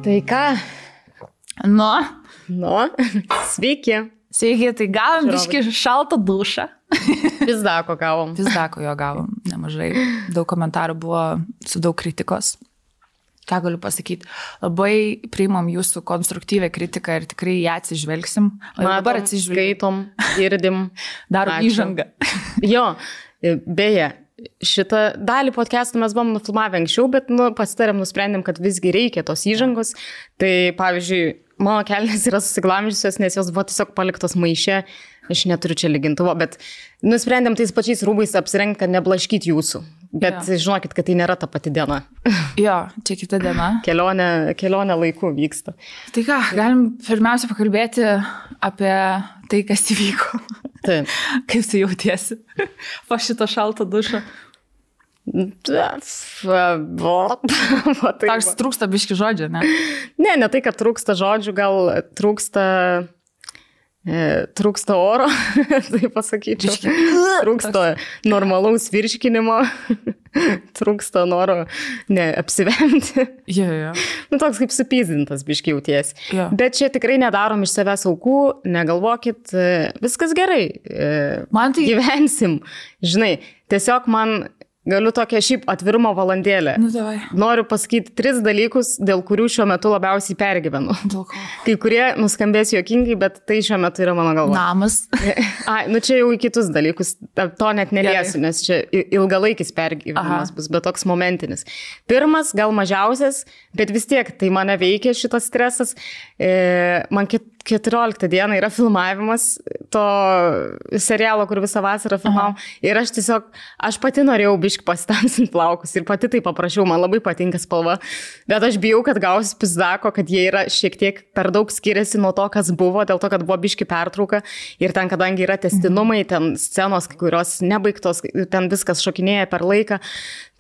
Tai ką? Nu, sveiki. Sveiki, tai gavom biškį šaltą dušą. Pizdako gavom. Pizdako jo gavom nemažai. Daug komentarų buvo su daug kritikos. Ką galiu pasakyti? Labai priimam jūsų konstruktyvę kritiką ir tikrai ją atsižvelgsim. Dabar atsižvelgom, girdim. Darom įžangą. Jo, beje, šitą dalį podcastų mes buvom nufilmavę anksčiau, bet pasitarėm, nusprendėm, kad visgi reikia tos įžangos. Tai pavyzdžiui, mano kelnės yra susiglamžiusios, nes jos buvo tiesiog paliktos maiše. Aš neturiu čia lygintuvo, bet nusprendėm tais pačiais rūbais apsirengti, kad neblaškyt jūsų. Bet žinokit, kad tai nėra ta pati diena. Jo, čia kita diena. Kelionė laiku vyksta. Tai ką, galim pirmiausia pakalbėti apie tai, kas įvyko. Taip. Kaip tu jautiesi po šito šalto dušo? Tars trūksta biški žodžių, ne? Ne tai, kad trūksta žodžių, gal trūksta oro, tai pasakyčiau. Trūksta normalaus virškinimo, trūksta noro apsivemti. Jo. Toks kaip supyzdintas biški jauties. Jo. Bet čia tikrai nedarom iš savęs aukų, negalvokit, viskas gerai, gyvensim. Žinai, tiesiog man galiu tokią šiaip atvirumo valandėlę. Davai. Noriu pasakyti 3 dalykus, dėl kurių šiuo metu labiausiai pergyvenu. Dėl ko? Kai kurie nuskambės juokingai, bet tai šiuo metu yra mano galva. Namas. Čia jau į kitus dalykus. To net neliesiu, nes čia ilgalaikis pergyvenimas bus, bet toks momentinis. Pirmas, gal mažiausias, bet vis tiek tai mane veikia šitas stresas. Man 14 dieną yra filmavimas to serialo, kur visą vasarą filmavom. Ir aš pati norėjau biškį pasitamsinti plaukus ir pati tai paprašiau, man labai patinka spalva. Bet aš bijau, kad gausiu pizdako, kad jie yra šiek tiek per daug skiriasi nuo to, kas buvo, dėl to, kad buvo biškį pertrauka. Ir ten, kadangi yra testinumai, ten scenos, kai kurios nebaigtos, ten viskas šokinėja per laiką.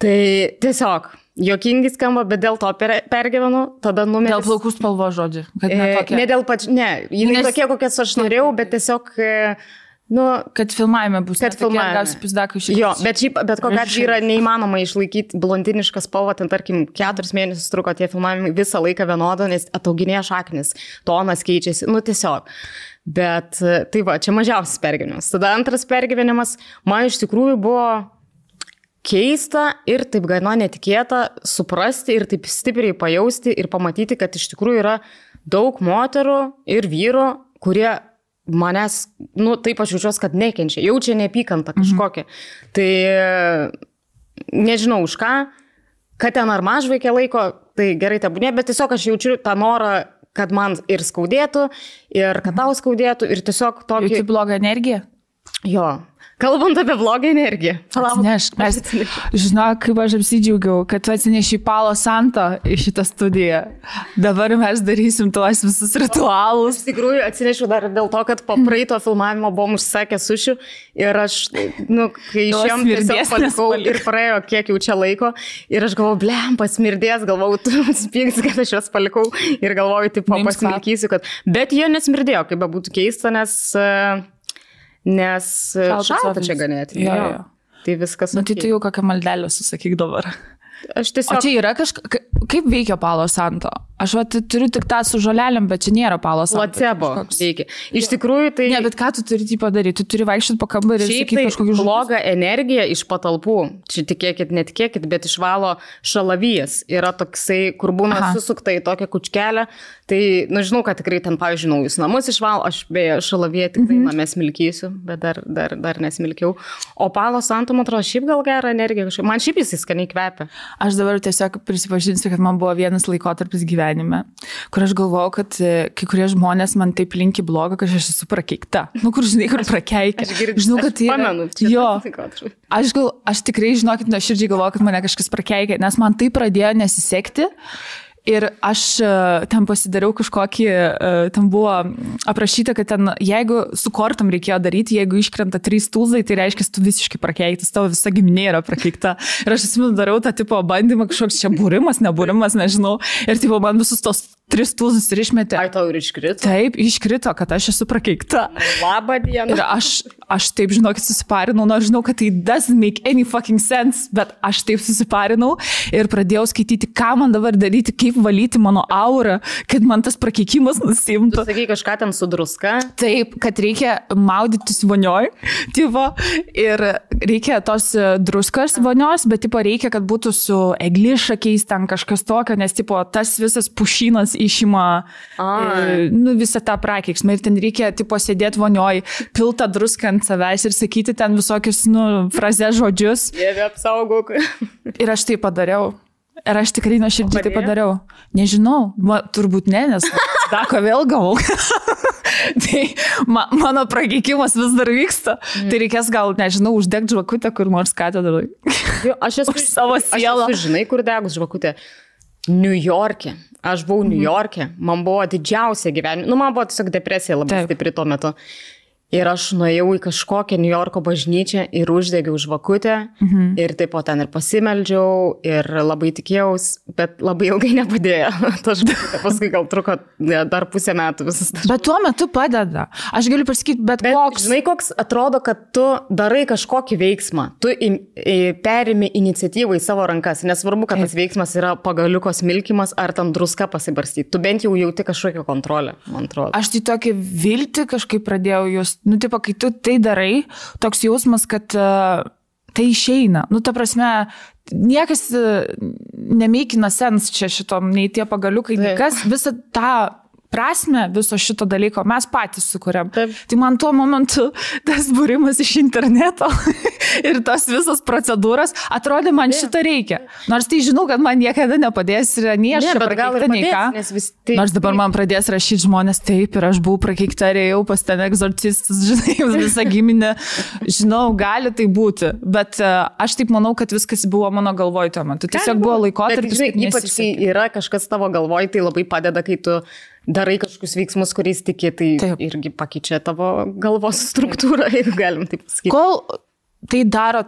Tai tiesiog juokingai skamba, bet dėl to pergyvenu, tada numeris. Dėl plaukų spalvo žodžių. Ne dėl jinai tokie, kokias aš norėjau, bet tiesiog, kad filmavime bus. Kad filmavime. Jo, bet kokia atveju yra neįmanoma išlaikyti blondinišką spalvą, ten tarkim 4 mėnesius truko tie filmavimai visą laiką vienodo, nes atauginėja šaknis, tonas keičiasi, tiesiog. Bet tai va, čia mažiausias pergyvenimas. Tada antras pergyvenimas, man iš tikrųjų buvo keista ir taip gana netikėta suprasti ir taip stipriai pajausti ir pamatyti, kad iš tikrųjų yra daug moterų ir vyrų, kurie manęs, taip aš jaučiuosi, kad nekenčia, jaučia neapykantą kažkokią. Tai nežinau už ką, kad ten ar mažvaikė laiko, tai gerai tebūnė, bet tiesiog aš jaučiu tą norą, kad man ir skaudėtų, ir kad tau skaudėtų, ir tiesiog tokį... Jauti blogą energiją? Jo. Kalbant apie blogą energiją. Atsinešk. Žinok, kaip aš apsidžiaugiau, kad tu atsineši Palo Santo į šitą studiją. Dabar mes darysim tuos visus ritualus. Iš tikrųjų, atsinešiu dar dėl to, kad po praeito filmavimo buvom užsakę sušių ir aš, kai išėjom, tiesiog palikau ir praėjo kiek jau čia laiko ir aš galvoju, blempa, smirdės, galvoju, tu spyks, kad aš juos palikau ir galvoju, tipo, pasmilkysiu, kad... Bet jie nesmirdėjo, kaip būtų keista, nes šalta čia ganėti. Jo. Tai viskas. Tai tu jau kokią maldelę susakyk dabar. Aš tiesiog... O čia yra kaip veikia Palo Santo? Aš turiu tik tą su žolelėm, bet čia nėra Palo Santo. Placebo veikia. Iš tikrųjų tai... Ne, bet ką tu turi padaryti? Tu turi vaikščioti po kambarį ir sakyti kažkokį žodį. Blogą energiją iš patalpų, čia tikėkit, netikėkit, bet išvalo šalavijas. Yra toksai, kur būna susukta į tokią kučkelę. Tai, žinau, kad tikrai ten, pavyzdžiui, naujus namus išvalo. Aš beje šalaviją tikrai name smilkysiu, bet dar nesmilkiau. O Palo Santo, man atrodo, šiaip gal gerą energiją. Man šiaip jis skaniai kvepia. Aš dabar tiesiog prisipažinsiu, kad man buvo vienas laikotarpis gyvenime, kur aš galvojau, kad kai kurie žmonės man taip linki blogą, kad aš esu prakeikta. Kur žinai, kur prakeikia. Žinau, kad tai pamenu. Jo. Aš tikrai, žinokit, nuoširdžiai galvoju, kad mane kažkas prakeikia, nes man tai pradėjo nesisekti. Ir aš ten pasidariau kažkokį, ten buvo aprašyta, kad ten, jeigu su kortom reikėjo daryti, jeigu iškrenta 3 tūzai, tai reiškia, tu visiškai prakeiktas, tavo visa giminė yra prakeikta. Ir aš atsimenu, dariau tą tipo bandymą, kažkoks čia būrimas, nebūrimas, nežinau. Ir tipo man visus tos 3 tūzus ir išmetė. Ai, tau ir iškrito? Taip, iškrito, kad aš esu prakeikta. Labą dieną. Ir aš taip, žinokit, susiparinau, nors žinau, kad tai doesn't make any fucking sense, bet aš taip susiparinau ir pradėjau skaityti, ką man dabar daryti, kaip taip valyti mano aurą, kad man tas prakeikimas nusimtų. Tu sakai kažką ten su druska? Taip, kad reikia maudytis vonioj, tipo, ir reikia tos druskos vonios, bet tipo reikia, kad būtų su eglišakiais ten kažkas tokio, nes tipo tas visas pušynas išima visą tą prakeiksmą ir ten reikia tipo sėdėti vonioj, piltą druską ant savęs ir sakyti ten visokius, frazės žodžius. Dieve apsaugok. Ir aš tai padariau. Ir aš tikrai nuoširdžiai tai padariau. Nežinau, turbūt ne, nes dako vėl gavau. Tai mano prakeikimas vis dar vyksta. Tai reikės gal, nežinau, uždegti žvakutę kur nors katedroj. Aš esu savo sielą. Aš esu, žinai, kur degus žvakutė. New York'e. Aš buvau New York'e. Man buvo didžiausia gyvenime. Man buvo tiesiog depresija labai stipri tuo metu. Ir aš nuėjau į kažkokią New Yorko bažnyčią ir uždegiau žvakutę. Ir taip po ten ir pasimeldžiau ir labai tikėjaus, bet labai ilgai nepadėjo. Paskui gal truko dar pusę metų visas. Bet tuo metu padeda. Aš galiu pasakyti, bet koks. Žinai, koks atrodo, kad tu darai kažkokį veiksmą. Tu perimi iniciatyvą į savo rankas. Nesvarbu, kad tas veiksmas yra pagaliuko smilkimas ar tam druska pasibarstyti. Tu bent jau jauti kažkokią kontrolę, man atrodo. Aš tai tokį viltį kažkaip pradėjau just. Tipo, kai tu tai darai, toks jausmas, kad tai išeina. Ta prasme, niekas nemeikina sens čia šitom, nei tie pagaliukai, kas visą tą prasme viso šito dalyko mes patys sukuriam. Tai man tuo momentu tas būrimas iš interneto ir tos visos procedūros atrodė, man šito reikia. Nors tai žinau, kad man niekada nepadės ir nei aš prakeikta, nei ką. Nors dabar man pradės rašyti žmonės taip ir aš buvau prakeikta ir ėjau pas ten egzorcistus, žinai, visą giminę. Žinau, gali tai būti, bet aš taip manau, kad viskas buvo mano galvoj tuo metu. Tiesiog buvo laikotarpis, kad ypač kai yra kažkas tavo galvoj, tai labai padeda, kai tu darai kažkokius veiksmus, kuriais tiki, tai irgi pakeičia tavo galvos struktūrą, jeigu galim taip pasakyti. Kol tai daro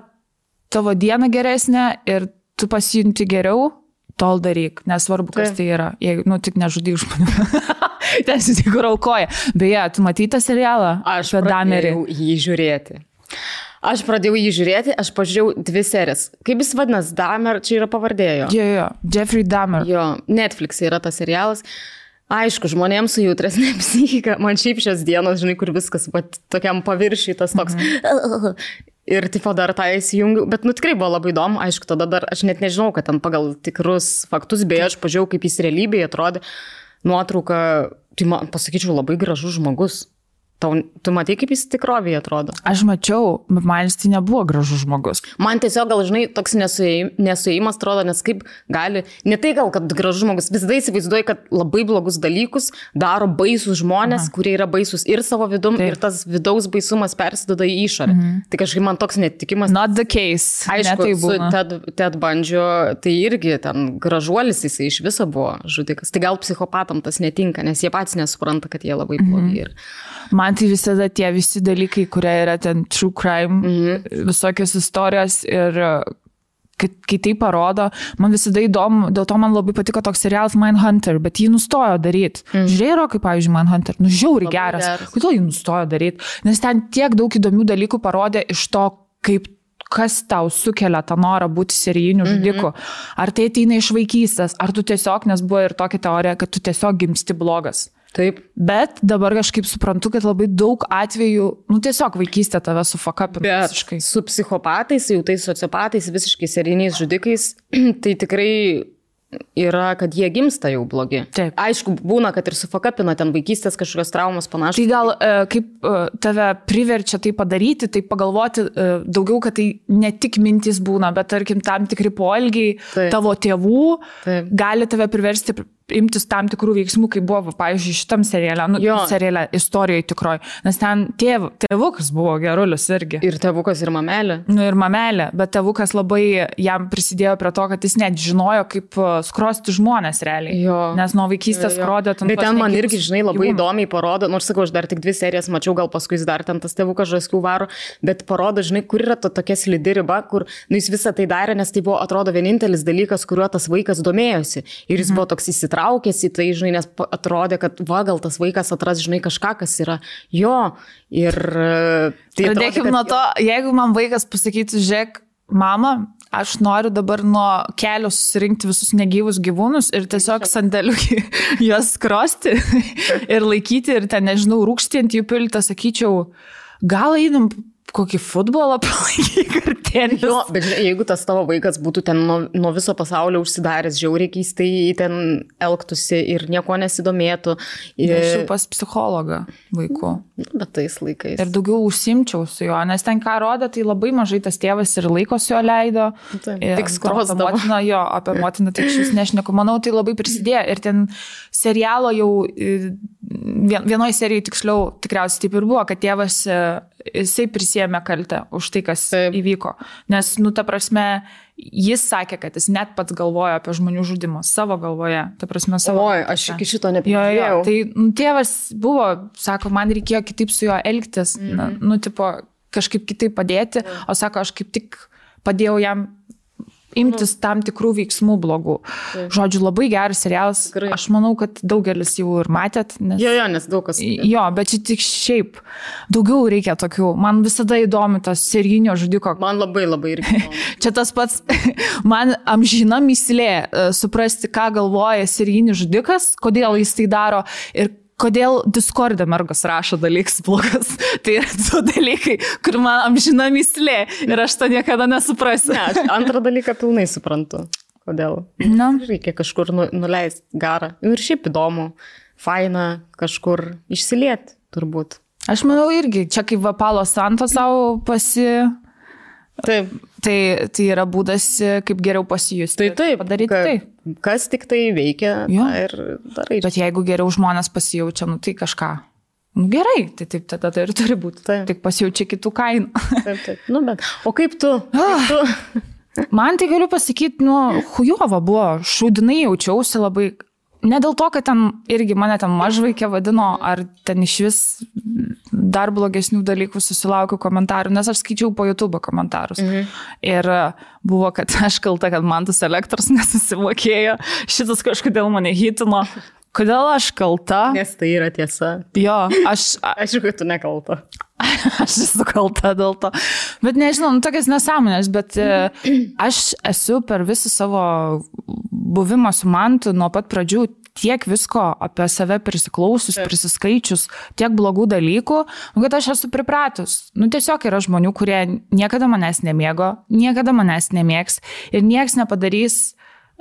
tavo dieną geresnę ir tu pasijunti geriau, tol daryk, nesvarbu, kas tai yra. Jeigu, tik nežudyk žmonių. Tiesiog tik aukoja. Beje, tu matei tą serialą? Aš pradėjau jį žiūrėti. Aš pažiūrėjau 2 serijas. Kaip jis vadinas? Dahmer, čia yra pavardėjo. Jo, Jeffrey Dahmer. Jo, Netflix yra tas serialas. Aišku, žmonėms su jautresnė psichika, man šiaip šios dienos, žinai, kur viskas tokiam paviršiui tas toks. Ir tipo dar tą įsijungiu, bet tikrai buvo labai įdomu, aišku, tada dar aš net nežinau, kad ten pagal tikrus faktus, beje, aš pažiūrėjau, kaip jis realybėje atrodė, nuotrauka, tai man pasakyčiau, labai gražus žmogus. Tu matai, kaip jis tikrovėje atrodo? Aš mačiau, bet man jis tai nebuvo gražus žmogus. Man tiesiog gal, žinai, toks nesuėjimas atrodo, nes kaip gali, ne tai gal, kad gražus žmogus, visada įsivaizduoju, kad labai blogus dalykus daro baisus žmonės, kurie yra baisus ir savo vidum, ir tas vidaus baisumas persiduoda į išorę. Tai kažkaip man toks netikimas. Not the case. Aišku, su Ted Bundy, tai irgi ten gražuolis jisai iš viso buvo žudikas. Tai gal psichopatam tas netinka, nes jie patys nesupranta, kad jie labai blogi. Man tai visada tie visi dalykai, kurie yra ten true crime, visokios istorijos ir kai tai parodo, man visada įdomu, dėl to man labai patiko toks serialas Mindhunter, bet jį nustojo daryti. Žiūrėjau, kaip pavyzdžiui Mindhunter, žiauriai geras. Kodėl jį nustojo daryti? Nes ten tiek daug įdomių dalykų parodė iš to, kas tau sukelia tą norą būti serijiniu žudiku. Ar tai ateina iš vaikystės, ar tu tiesiog, nes buvo ir tokia teorija, kad tu tiesiog gimsti blogas. Taip. Bet dabar kažkaip suprantu, kad labai daug atvejų, tiesiog vaikystė tave sufakapina visiškai. Su psichopatais, jau tais sociopatais, visiškai serijiniais žudikais, tai tikrai yra, kad jie gimsta jau blogi. Taip. Aišku, būna, kad ir sufakapina ten vaikystės kažkokios traumos panašios. Tai gal kaip tave priverčia tai padaryti, tai pagalvoti daugiau, kad tai ne tik mintys būna, bet tarkim tam tikri poelgiai tavo tėvų gali tave priversti imtis tam tikrų veiksmų, kaip buvo, pavyzdžiui, šitam seriale istorijoje tikroji. Nes ten tėvukas buvo gerulis irgi. Ir tėvukas, ir mamelė. Ir mamelė, bet tėvukas labai jam prisidėjo prie to, kad jis net žinojo, kaip skrosti žmonės realiai. Nes nuo vaikystės skrodė ten. Bet ten man irgi, žinai, labai įdomiai parodo, nors sakau, aš dar tik 2 serijas mačiau, gal paskui jis dar ten tas tėvukas žaskių varo, bet parodo, žinai, kur yra tokia slidi riba, kur jis visą tai darė, nes tai buvo, atrodo, vienintelis dalykas, kuriuo tas vaikas domėjosi. Ir jis buvo toks įsitraukęs į tai, žinai, nes atrodė, kad gal tas vaikas atras, žinai, kažką, kas yra jo. Ir tai pradėkim nuo to, jeigu man vaikas pasakytų, žiūrėk, mama, aš noriu dabar nuo kelio susirinkti visus negyvus gyvūnus ir tiesiog sandėliukį juos skrosti ir laikyti ir ten, nežinau, rūkštį ant jų piltą, sakyčiau, gal einam kokį futbolą palaikyk ar tenis. Jo, bet jeigu tas tavo vaikas būtų ten nuo viso pasaulio užsidaręs, žiauriai keistai ten elgtųsi ir nieko nesidomėtų. Aš jau pas psichologą vaikų. Bet tais laikais. Ir daugiau užsimčiau su juo, nes ten ką rodė, tai labai mažai tas tėvas ir laiko su juo leido. Tik skrosdavo. Apie motiną tik šis nešneku. Manau, tai labai prisidėjo. Ir ten serialo jau vienoje serijoje tiksliau tikriausiai taip ir buvo, kad tėvas jisai prisėmė kaltę už tai, kas įvyko. Nes, ta prasme, jis sakė, kad jis net pats galvojo apie žmonių žudimą savo galvoje. Ta prasme, savo. Oi, aš iki šito nepažiūrėjau. Tai tėvas buvo, sako, man reikėjo kitaip su juo elgtis, tipo, kažkaip kitaip padėti, o sako, aš kaip tik padėjau jam imtis tam tikrų veiksmų blogų. Žodžiu, labai geras serialas. Tikrai. Aš manau, kad daugelis jau ir matėt. Nes... nes daug kas. Jo, bet čia tik šiaip. Daugiau reikia tokių. Man visada įdomi tas serijinio žudiko. Man labai irgi. Čia tas pats, man amžina mįslė suprasti, ką galvoja serijinis žudikas, kodėl jis tai daro ir kodėl Discord'e mergos rašo dalykus blogas. Tai yra du dalykai, kur man amžina mįslė ir aš to niekada nesuprasiu. Ne, aš antrą dalyką pilnai suprantu. Kodėl? Reikia kažkur nuleisti garą. Ir šiaip įdomu, faina kažkur išsilieti, turbūt. Aš manau irgi, čia kaip Palo Santo savo Taip. Tai yra būdas, kaip geriau pasijusti. Taip, padaryti tai. Kas tik tai veikia ir darai. Bet jeigu geriau žmonės pasijaučia, tai kažką. Gerai, tai taip tada tai ir turi būti. Tik pasijaučia kitų kainų. Taip. Bet, o kaip tu? Man tai galiu pasakyti, chujova buvo, šūdinai jaučiausi labai. Ne dėl to, kad ten irgi mane ten mažvaikė vadino, ar ten iš vis dar blogesnių dalykų susilaukiu komentarų, nes aš skaičiau po YouTube komentarus. Ir buvo, kad aš kalta, kad man tas elektros nesusimokėjo, šitas kažkodėl mane hitino. Kodėl aš kalta? Nes tai yra tiesa. Jo, Aišku, kad tu nekalta. Aš esu kalta dėl to. Bet nežinau, tokias nesąmonės, bet aš esu per visą savo buvimą su Mantu nuo pat pradžių tiek visko apie save prisiklausius, prisiskaičius, tiek blogų dalykų, kad aš esu pripratus. Tiesiog yra žmonių, kurie niekada manęs nemėgo, niekada manęs nemėgs ir nieks nepadarys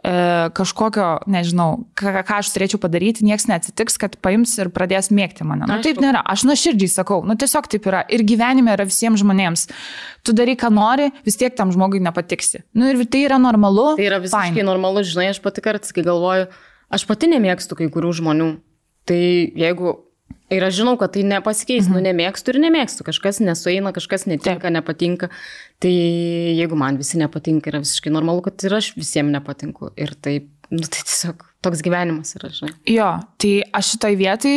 kažkokio, nežinau, ką aš turėčiau padaryti, nieks neatsitiks, kad paims ir pradės mėgti mane. Taip nėra. Aš nuoširdžiai sakau, tiesiog taip yra. Ir gyvenime yra visiems žmonėms. Tu darai, ką nori, vis tiek tam žmogui nepatiksi. Ir tai yra normalu. Tai yra visiškai normalu, žinai, aš pati kartais, kai galvoju, aš pati nemėgstu kai kurių žmonių. Tai jeigu... Ir aš žinau, kad tai nepasikeis, nemėgstu ir nemėgstu. Kažkas nesueina, kažkas netinka, nepatinka. Tai jeigu man visi nepatinka, yra visiškai normalu, kad ir aš visiems nepatinku. Ir taip, tai tiesiog toks gyvenimas yra, žinai. Jo, tai aš šitoj vietai,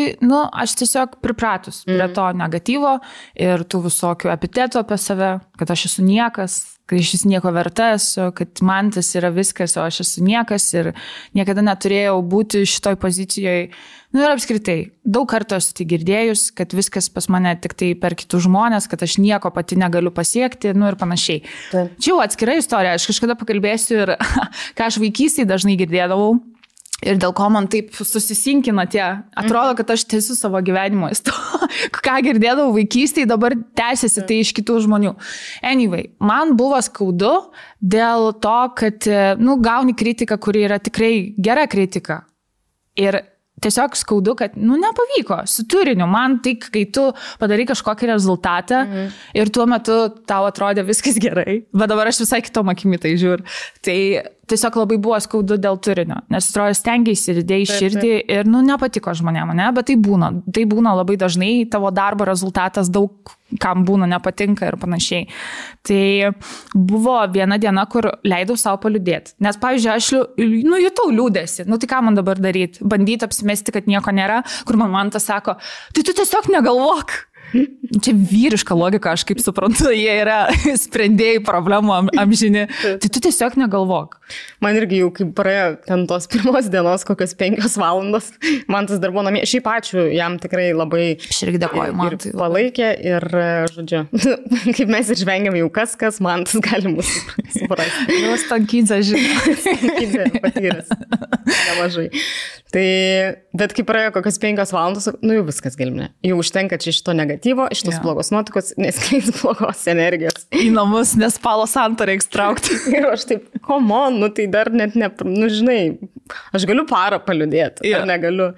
aš tiesiog pripratus prie to negatyvo ir tų visokių epitetų apie save, kad aš esu niekas, kad aš esu nieko verta esu, kad man tas yra viskas, o aš esu niekas ir niekada neturėjau būti šitoj pozicijoje. Ir apskritai, daug kartų esu tai girdėjus, kad viskas pas mane tik tai per kitus žmonės, kad aš nieko pati negaliu pasiekti, ir panašiai. Čia jau atskira istorija, aš kažkada pakalbėsiu ir ką aš vaikystėje dažnai girdėdavau. Ir dėl ko man taip susisinkina tie, atrodo, kad aš tęsiu savo gyvenimo istoriją. Ką girdėdavau vaikystėje, dabar tęsiasi tai iš kitų žmonių. Anyway, man buvo skaudu dėl to, kad, gauni kritiką, kuri yra tikrai gera kritika. Ir tiesiog skaudu, kad, nepavyko su turiniu. Man tik, kai tu padarai kažkokį rezultatą ir tuo metu tau atrodė viskas gerai, bet dabar aš visai kitom akimi tai žiūriu. Tai tiesiog labai buvo skaudu dėl turinio, nes atrodo stengiaisi ir dėjai širdį ir, nepatiko žmonėm, bet tai būna labai dažnai, tavo darbo rezultatas daug kam būna nepatinka ir panašiai. Tai buvo viena diena, kur leidau savo paliūdėti, nes, pavyzdžiui, aš jutau liūdėsi, tai ką man dabar daryti, bandyti apsimesti, kad nieko nėra, kur man tas sako, tai tu tiesiog negalvok. čia vyriška logika, aš kaip suprantu, jie yra sprendėjai problemų amžini. Tai tu tiesiog negalvok. Man irgi jau kaip praėjo ten tos pirmos dienos, kokios 5 valandos, man tas dar buvo namie. Šiaip ačiū, jam tikrai labai aš irgi dėkoju, man tai palaikė ir, žodžiu, kaip mes ir žvengiam jau kas, man tas gali mūsų suprasti. Jau Stankydzė, žinai. Stankydzė patyręs. Nemažai. Tai, bet kai praėjo kokios 5 valandos, nu jau viskas galimne. Jau užtenka čia šito negatyvo, šitos blogos nuotikos, neskleis blogos energijos. Į namus, nes palo santą reiks traukti. Ir aš taip, come on, nu tai dar net nu žinai, aš galiu parą paliudėti, ar negaliu.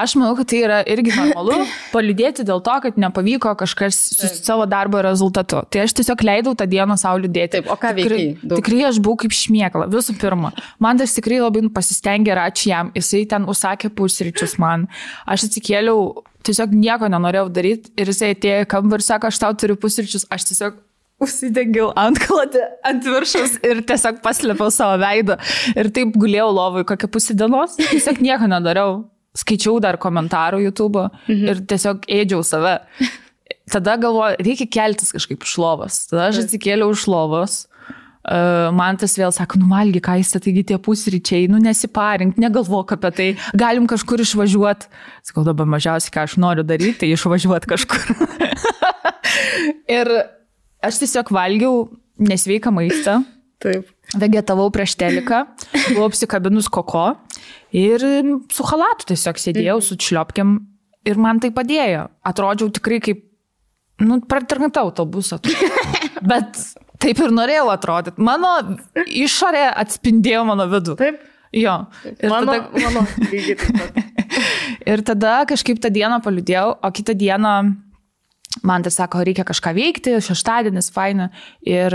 Aš manau, kad tai yra irgi normalu paliudėti dėl to, kad nepavyko kažkas su savo darbo rezultatu. Tai aš tiesiog leidau tą dieną sau liūdėti. Taip, o ką veikiai? Tikrai aš buvau kaip šmėkla, visų pirma. Man tas tikrai labai pasistengė ir ačiū jam. Jisai ten užsakė pusryčius man. Aš atsikėliau, tiesiog nieko nenorėjau daryti ir jisai atėjo į kambarį ir sako, aš tau turiu pusryčius. Aš tiesiog užsidengiau antklodį ant viršus ir tiesiog paslėpiau savo veidą. Ir taip gulėjau lovui kokią pusę dienos. Tiesiog nieko nedariau. Skaičiau dar komentarų YouTube ir tiesiog ėdžiau save. Tada galvoju, reikia keltis kažkaip iš lovos. Tada aš atsikėliau iš lovos. Man tas vėl sako, nuvalgy, ką jis, taigi tie pusryčiai, nesiparink, negalvok apie tai, galim kažkur išvažiuoti. Sakau, dabar mažiausiai, ką aš noriu daryti, tai išvažiuoti kažkur. Ir aš tiesiog valgiau nesveiką maistą. Taip. Vegetavau prieš teliką, buvau apsikabinus koko ir su halatu tiesiog sėdėjau su šliopkiam ir man tai padėjo. Atrodžiau tikrai kaip, pratarnata autobusą. Bet taip ir norėjau atrodyti. Mano išorė atspindėjo mano vidų. Taip. Jo. Ir mano lygiai taip pat. Ir tada kažkaip tą dieną paliudėjau, o kitą dieną man tai sako, reikia kažką veikti, šeštadienis, faina. Ir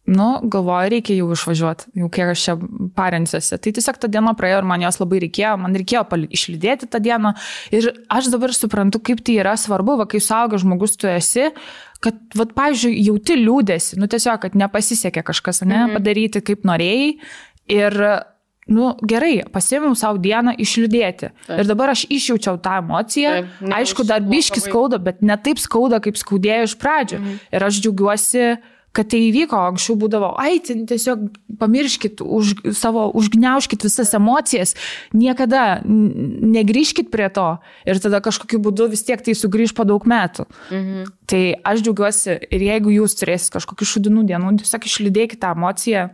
galvoju, reikia jau išvažiuoti, jau kiek aš čia parensiuosi. Tai tiesiog tą dieną praėjo ir man jos labai reikėjo, man reikėjo išlydėti tą dieną. Ir aš dabar suprantu, kaip tai yra svarbu, kai suaugęs žmogus tu esi, kad, pavyzdžiui, jauti liūdėsi, tiesiog, kad nepasisekė kažkas, padaryti kaip norėjai. Ir, gerai, pasiėmiau savo dieną išliūdėti. Taip. Ir dabar aš išjaučiau tą emociją. Taip, aišku, dar biški skauda, bet ne taip skauda, kaip skaudėjo iš pradžių. Ir aš džiaugiuosi, kad tai įvyko, anksčiau būdavo, tiesiog pamirškit, užgniaužkit visas emocijas, niekada negrįžkit prie to ir tada kažkokiu būdu vis tiek tai sugrįž po daug metų. Tai aš džiaugiuosi ir jeigu jūs turėsit kažkokių šudinų dienų, tiesiog išlydėkit tą emociją,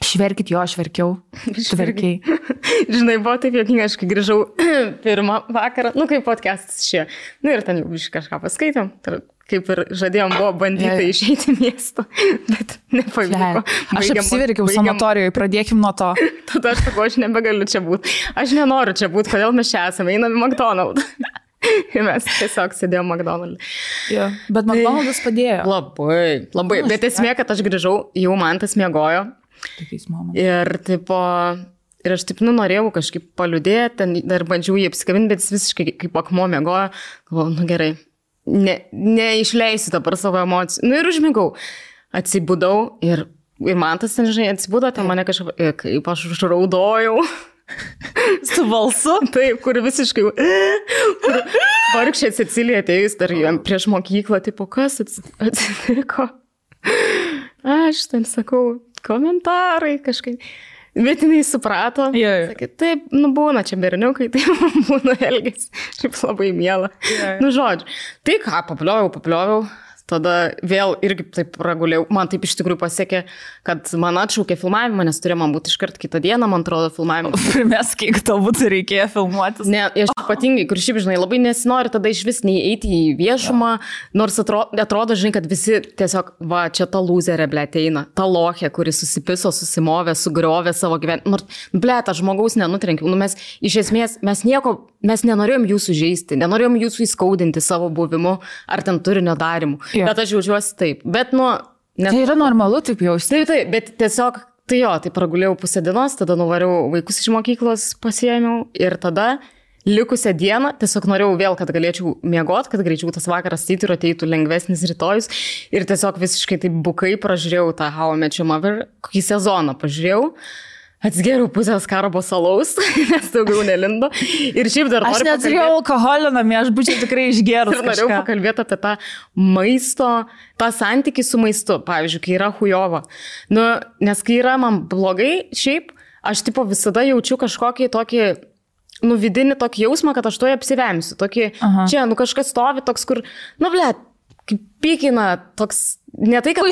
šverkit jo, aš verkiau, tu verkiai. Žinai, buvo taip juokinga, aš kai grįžau pirmą vakarą, kaip podcastas šie, ir ten jau kažką paskaitėm. Kaip ir žadėjom, buvo bandyti išeiti miesto, bet nepavyko. Aš apsiverkiau sanatorijoje, pradėkim nuo to. Tada aš sakau, aš nebegaliu čia būti. Aš nenoriu čia būti, kodėl mes čia esame, einam į McDonald's. Ir mes tiesiog sėdėjom McDonald's. Ja, bet McDonald's padėjo. Labai. Bet esmė, kad aš grįžau, jau man tas miegojo. Ir aš taip norėjau kažkaip paliudėti, dar bandžiau jį apsikabinti, bet jis visiškai kaip akmuo miegojo. Galvoju, gerai. Neišleisiu dabar savo emocijų. Ir užmigau. Atsibudau ir man tas, žinai, atsibudo, ten mane kažkaip, kaip aš užraudojau. Su balsu? Taip, kur visiškai, vargšė Cecilija atėjus dar prieš mokyklą, tipo, kas atsitiko? Aš ten sakau, komentarai kažkaip. Bet jinai suprato, sakė, taip, būna čia berniukai, taip būna elgės, šiaip labai miela. Žodžiu, tai ką, paplioviau, tada vėl irgi taip pragulėjau, man taip iš tikrųjų pasiekė, kad man atšaukė filmavimą, nes turėjo man būti iškart kitą dieną, man atrodo, filmavimą. Primės, kiek tau būtų reikėjo filmuotis. Ne, aš ypatingai, kur šiaip, žinai, labai nesinori tada iš vis nei eiti į viešumą, nors atrodo, žinai, kad visi tiesiog, čia ta lūzerė, eina, ta lochė, kuri susipiso, susimovė, sugriovė savo gyvenimą. Nors, ta žmogaus nenutrenkiau. Mes iš esmės, mes nenorėjom jūsų žeisti, nenorėjom jūsų įskaudinti savo buvimu ar ten turinio darimu. Bet aš jaučiuosi taip. Bet, tai yra normalu taip jausti. Taip, bet tiesiog, tai pragulėjau pusę dienos, tada nuvariau vaikus iš mokyklos, pasiėmiau ir tada likusią dieną tiesiog norėjau vėl, kad galėčiau miegoti, kad greičiau tas vakaras ir ateitų lengvesnis rytojus ir tiesiog visiškai taip bukai pražiūrėjau tą How I Met Your Mother, kokį sezoną pažiūrėjau. Atsgeriau pusės karabo salaus, nes daugiau nelindo. Ir šiaip dar aš neturėjau alkoholio namie, aš būčiau tikrai išgerus. Ir norėjau pakalbėti apie tą maisto, tą santykį su maistu, pavyzdžiui, kai yra hujova. Nu, nes kai yra man blogai, šiaip, aš tipo visada jaučiu kažkokį tokį, nu, vidinį tokį jausmą, kad aš toje apsivemsiu. Tokį, čia, nu, kažkas stovi toks, kur, nu, blėt, kaip pykina, toks, ne tai, kad...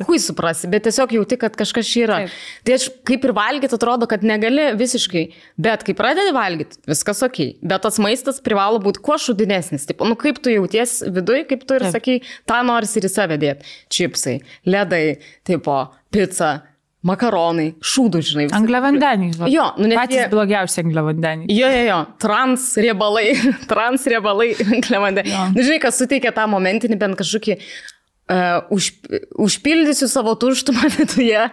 Kui suprasi, bet tiesiog jauti, kad kažkas yra. Taip. Tai aš kaip ir valgyti atrodo, kad negali visiškai, bet kai pradedi valgyti, viskas okei. Bet tas maistas privalo būti kuo šudinesnis. Tipo, nu, kaip tu jauties viduj, kaip tu ir sakai, tą norisi ir į save dėti. Čipsai, ledai, tipo, pizza, makaronai, šūdų, žinai. Angliavandeniai. Jo, nu net patys blogiausi angliavandeniai. Jo. Transriebalai, angliavandeniai. Nu, žinai, kas suteikia tą momentinį bent kažkokį užpildysiu savo tuštumą viduje,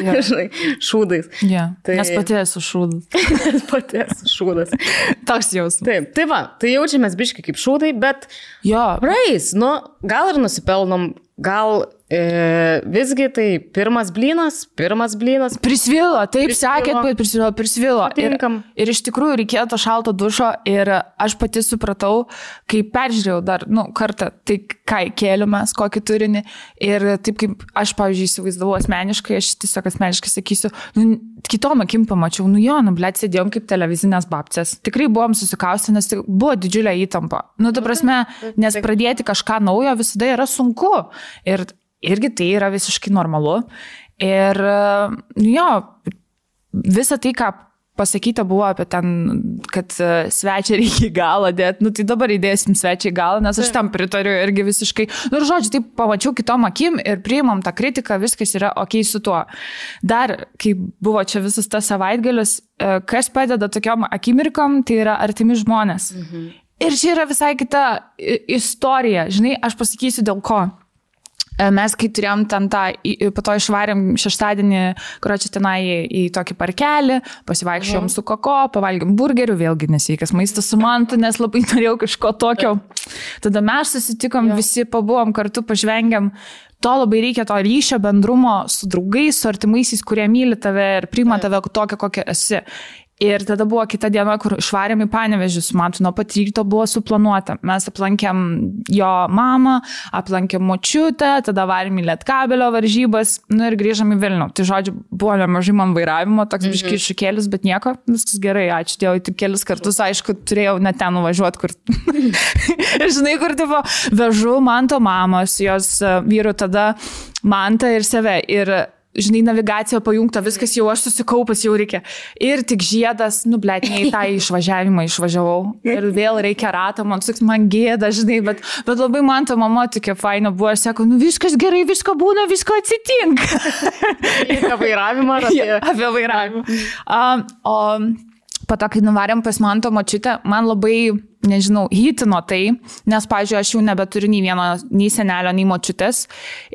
žinai, šūdais. Tai... Nes pati esu šūdas. Toks jausmas. Taip, tai va, tai jaučiamės biški kaip šūdai, bet praeis, nu, gal ir nusipelnom, gal visgi tai pirmas blynas. Prisvilo, taip sakėt, bet prisvilo. Ir iš tikrųjų reikėjo to šalto dušo ir aš pati supratau, kai peržiūrėjau dar, nu, kartą, tai ką kėliumės, kokį turinį ir taip kaip aš, pavyzdžiui, įsivaizdavau asmeniškai, aš tiesiog asmeniškai sakysiu, nu, kitom akim pamačiau, blėt, sėdėjom kaip televizinės babcės. Tikrai buvom susikaustę, nes buvo didžiulė įtampa. Nu, ta prasme, nes pradėti kažką naujo visada yra sunku. Ir irgi tai yra visiškai normalu. Ir visa tai, ką pasakyta buvo apie ten, kad svečią reikia į galą dėti, nu tai dabar įdėsim svečią į galą, nes aš tam pritariu irgi visiškai. Nu ir žodžiu, taip pamačiau kitom akim ir priimam tą kritiką, viskas yra okei su tuo. Dar, kai buvo čia visas tas savaitgalis, kas padeda tokiom akimirkom, tai yra artimi žmonės. Ir čia yra visai kita istorija. Žinai, aš pasakysiu dėl ko. Mes, kai turėjom ten tą, po to išvarėm šeštadienį, kur čia tenai į tokį parkelį, pasivaikščiojom su Koko, pavalgėm burgerių, vėlgi nesveikas maistas su mantu, nes labai norėjau kažko tokio. Tada mes susitikom, visi pabuvom kartu, pažvengiam. To labai reikia, to ryšio, bendrumo su draugais, su artimaisiais, kurie myli tave ir priima tave tokią, kokią esi. Ir tada buvo kita diena, kur išvarėm į Panevėžį su mantu, nuo pat ryto buvo suplanuota. Mes aplankėm jo mamą, aplankėm močiutę, tada varėm į Lietkabelio varžybas, nu ir grįžom į Vilnių. Tai žodžiu, buvo nemažai man vairavimo, toks biški iššūkėlis, bet nieko, viskas gerai, ačiū Dievui, tik kelis kartus, aišku, turėjau net ten nuvažiuoti, kur... Ir žinai, kur tipo, vežu manto mamos, jos vyru tada mantą ir save. Ir žinai, navigacija pajungta, viskas jau aš susikaupęs, jau reikia. Ir tik žiedas, nu, blėt, ne į tą išvažiavimą išvažiavau. Ir vėl reikia ratą, man gėda, žinai, bet labai man ta mama tokia faina buvo, aš sako, nu, viskas gerai, visko būna, visko atsitinka. Apie vairavimą ar apie... Apie vairavimą. O po to, kai nuvarėm pas manto močiutę, man labai, nežinau, hitino tai, nes, pavyzdžiui, aš jau nebeturiu nei vieno, nei senelio, nei močiutės.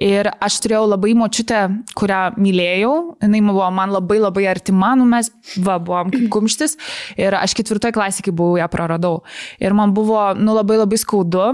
Ir aš turėjau labai močiutę, kurią mylėjau. Jinai buvo man labai labai artima, nu mes buvom kaip kumštis. Ir aš 4 klasėje, kai buvau, ją praradau. Ir man buvo, nu, labai labai skaudu.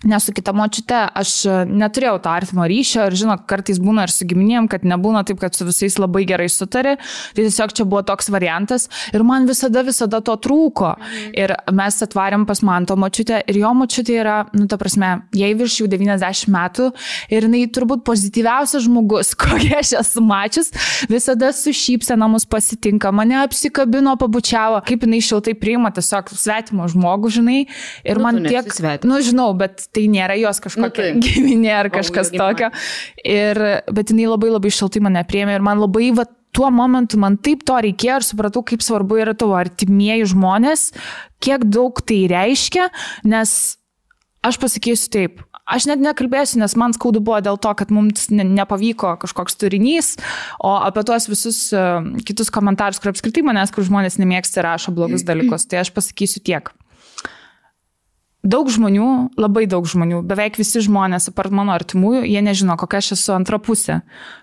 Nes su kita močiute aš neturėjau to artimo ryšio ir žinok, kartais būna ir su giminėm, kad nebūna taip, kad su visais labai gerai sutari. Tai tiesiog čia buvo toks variantas ir man visada to trūko. Ir mes atvarėm pas manto močiutę ir jo močiutė yra, nu ta prasme, jai virš jau 90 metų ir jinai turbūt pozityviausias žmogus, kokia aš esu mačius, visada su šypsena mus pasitinka, mane apsikabino, pabučiavo, kaip jinai šiltai priima tiesiog svetimo žmogų, žinai. Ir man tiek, nu žinau, bet tai nėra jos kažkokia giminė ar kažkas tokio. Bet jinai labai labai šiltai mane priėmė ir man labai, va, tuo momentu man taip to reikėjo ir supratau, kaip svarbu yra tavo artimieji žmonės, kiek daug tai reiškia, nes aš pasakysiu taip, aš net nekalbėsiu, nes man skaudu buvo dėl to, kad mums nepavyko kažkoks turinys, o apie tuos visus kitus komentarus, kur apskritai manęs, kur žmonės nemėgsta ir rašo blogus dalykus, tai aš pasakysiu tiek. Daug žmonių, labai daug žmonių, beveik visi žmonės, apart mano artimųjų, jie nežino, kokia aš esu antra pusė,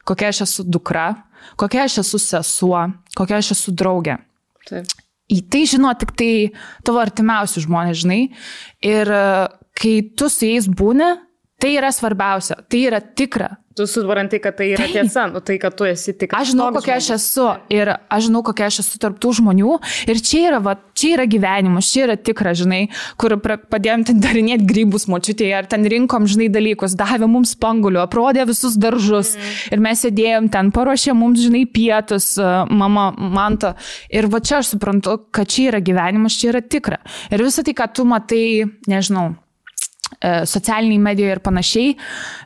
kokia aš esu dukra, kokia aš esu sesuo, kokia aš esu draugė. Taip. Į tai žino tik tai tavo artimiausi žmonės, žinai. Ir kai tu su jais būni, Tai yra svarbiausia, tai yra tikra. Tu supranti, kad tai yra tiesa, tai, kad tu esi tikras. Aš žinau, kokia aš esu ir aš žinau, kokia aš esu tarp tų žmonių ir čia yra gyvenimas, čia yra tikra, žinai, kur padėjom ten darinėti grybus močiutėje ar ten rinkom, žinai, dalykus, davė mums spangulių, aprodė visus daržus ir mes sėdėjom ten, paruošė mums, žinai, pietus, mama, Manta ir va čia aš suprantu, kad čia yra gyvenimas, čia yra tikra. Ir visą tai, ką tu matai, nežinau, socialiniai medijoje ir panašiai,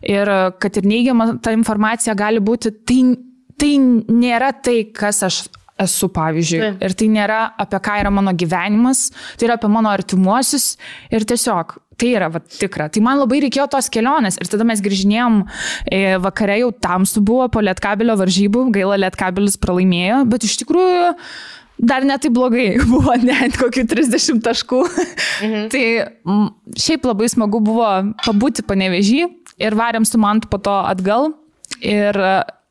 ir kad ir neigiama ta informacija gali būti, tai nėra tai, kas aš esu, pavyzdžiui. Ir tai nėra apie ką yra mano gyvenimas, tai yra apie mano artimuosius ir tiesiog tai yra tikra. Tai man labai reikėjo tos kelionės ir tada mes grįžinėjom, vakare jau tamsu buvo po Lietkabelio varžybų, gaila Lietkabelis pralaimėjo, bet iš tikrųjų dar ne taip blogai, buvo net kokių 30 taškų. Tai šiaip labai smagu buvo pabūti Panevėžy ir varėm su Mantu po to atgal ir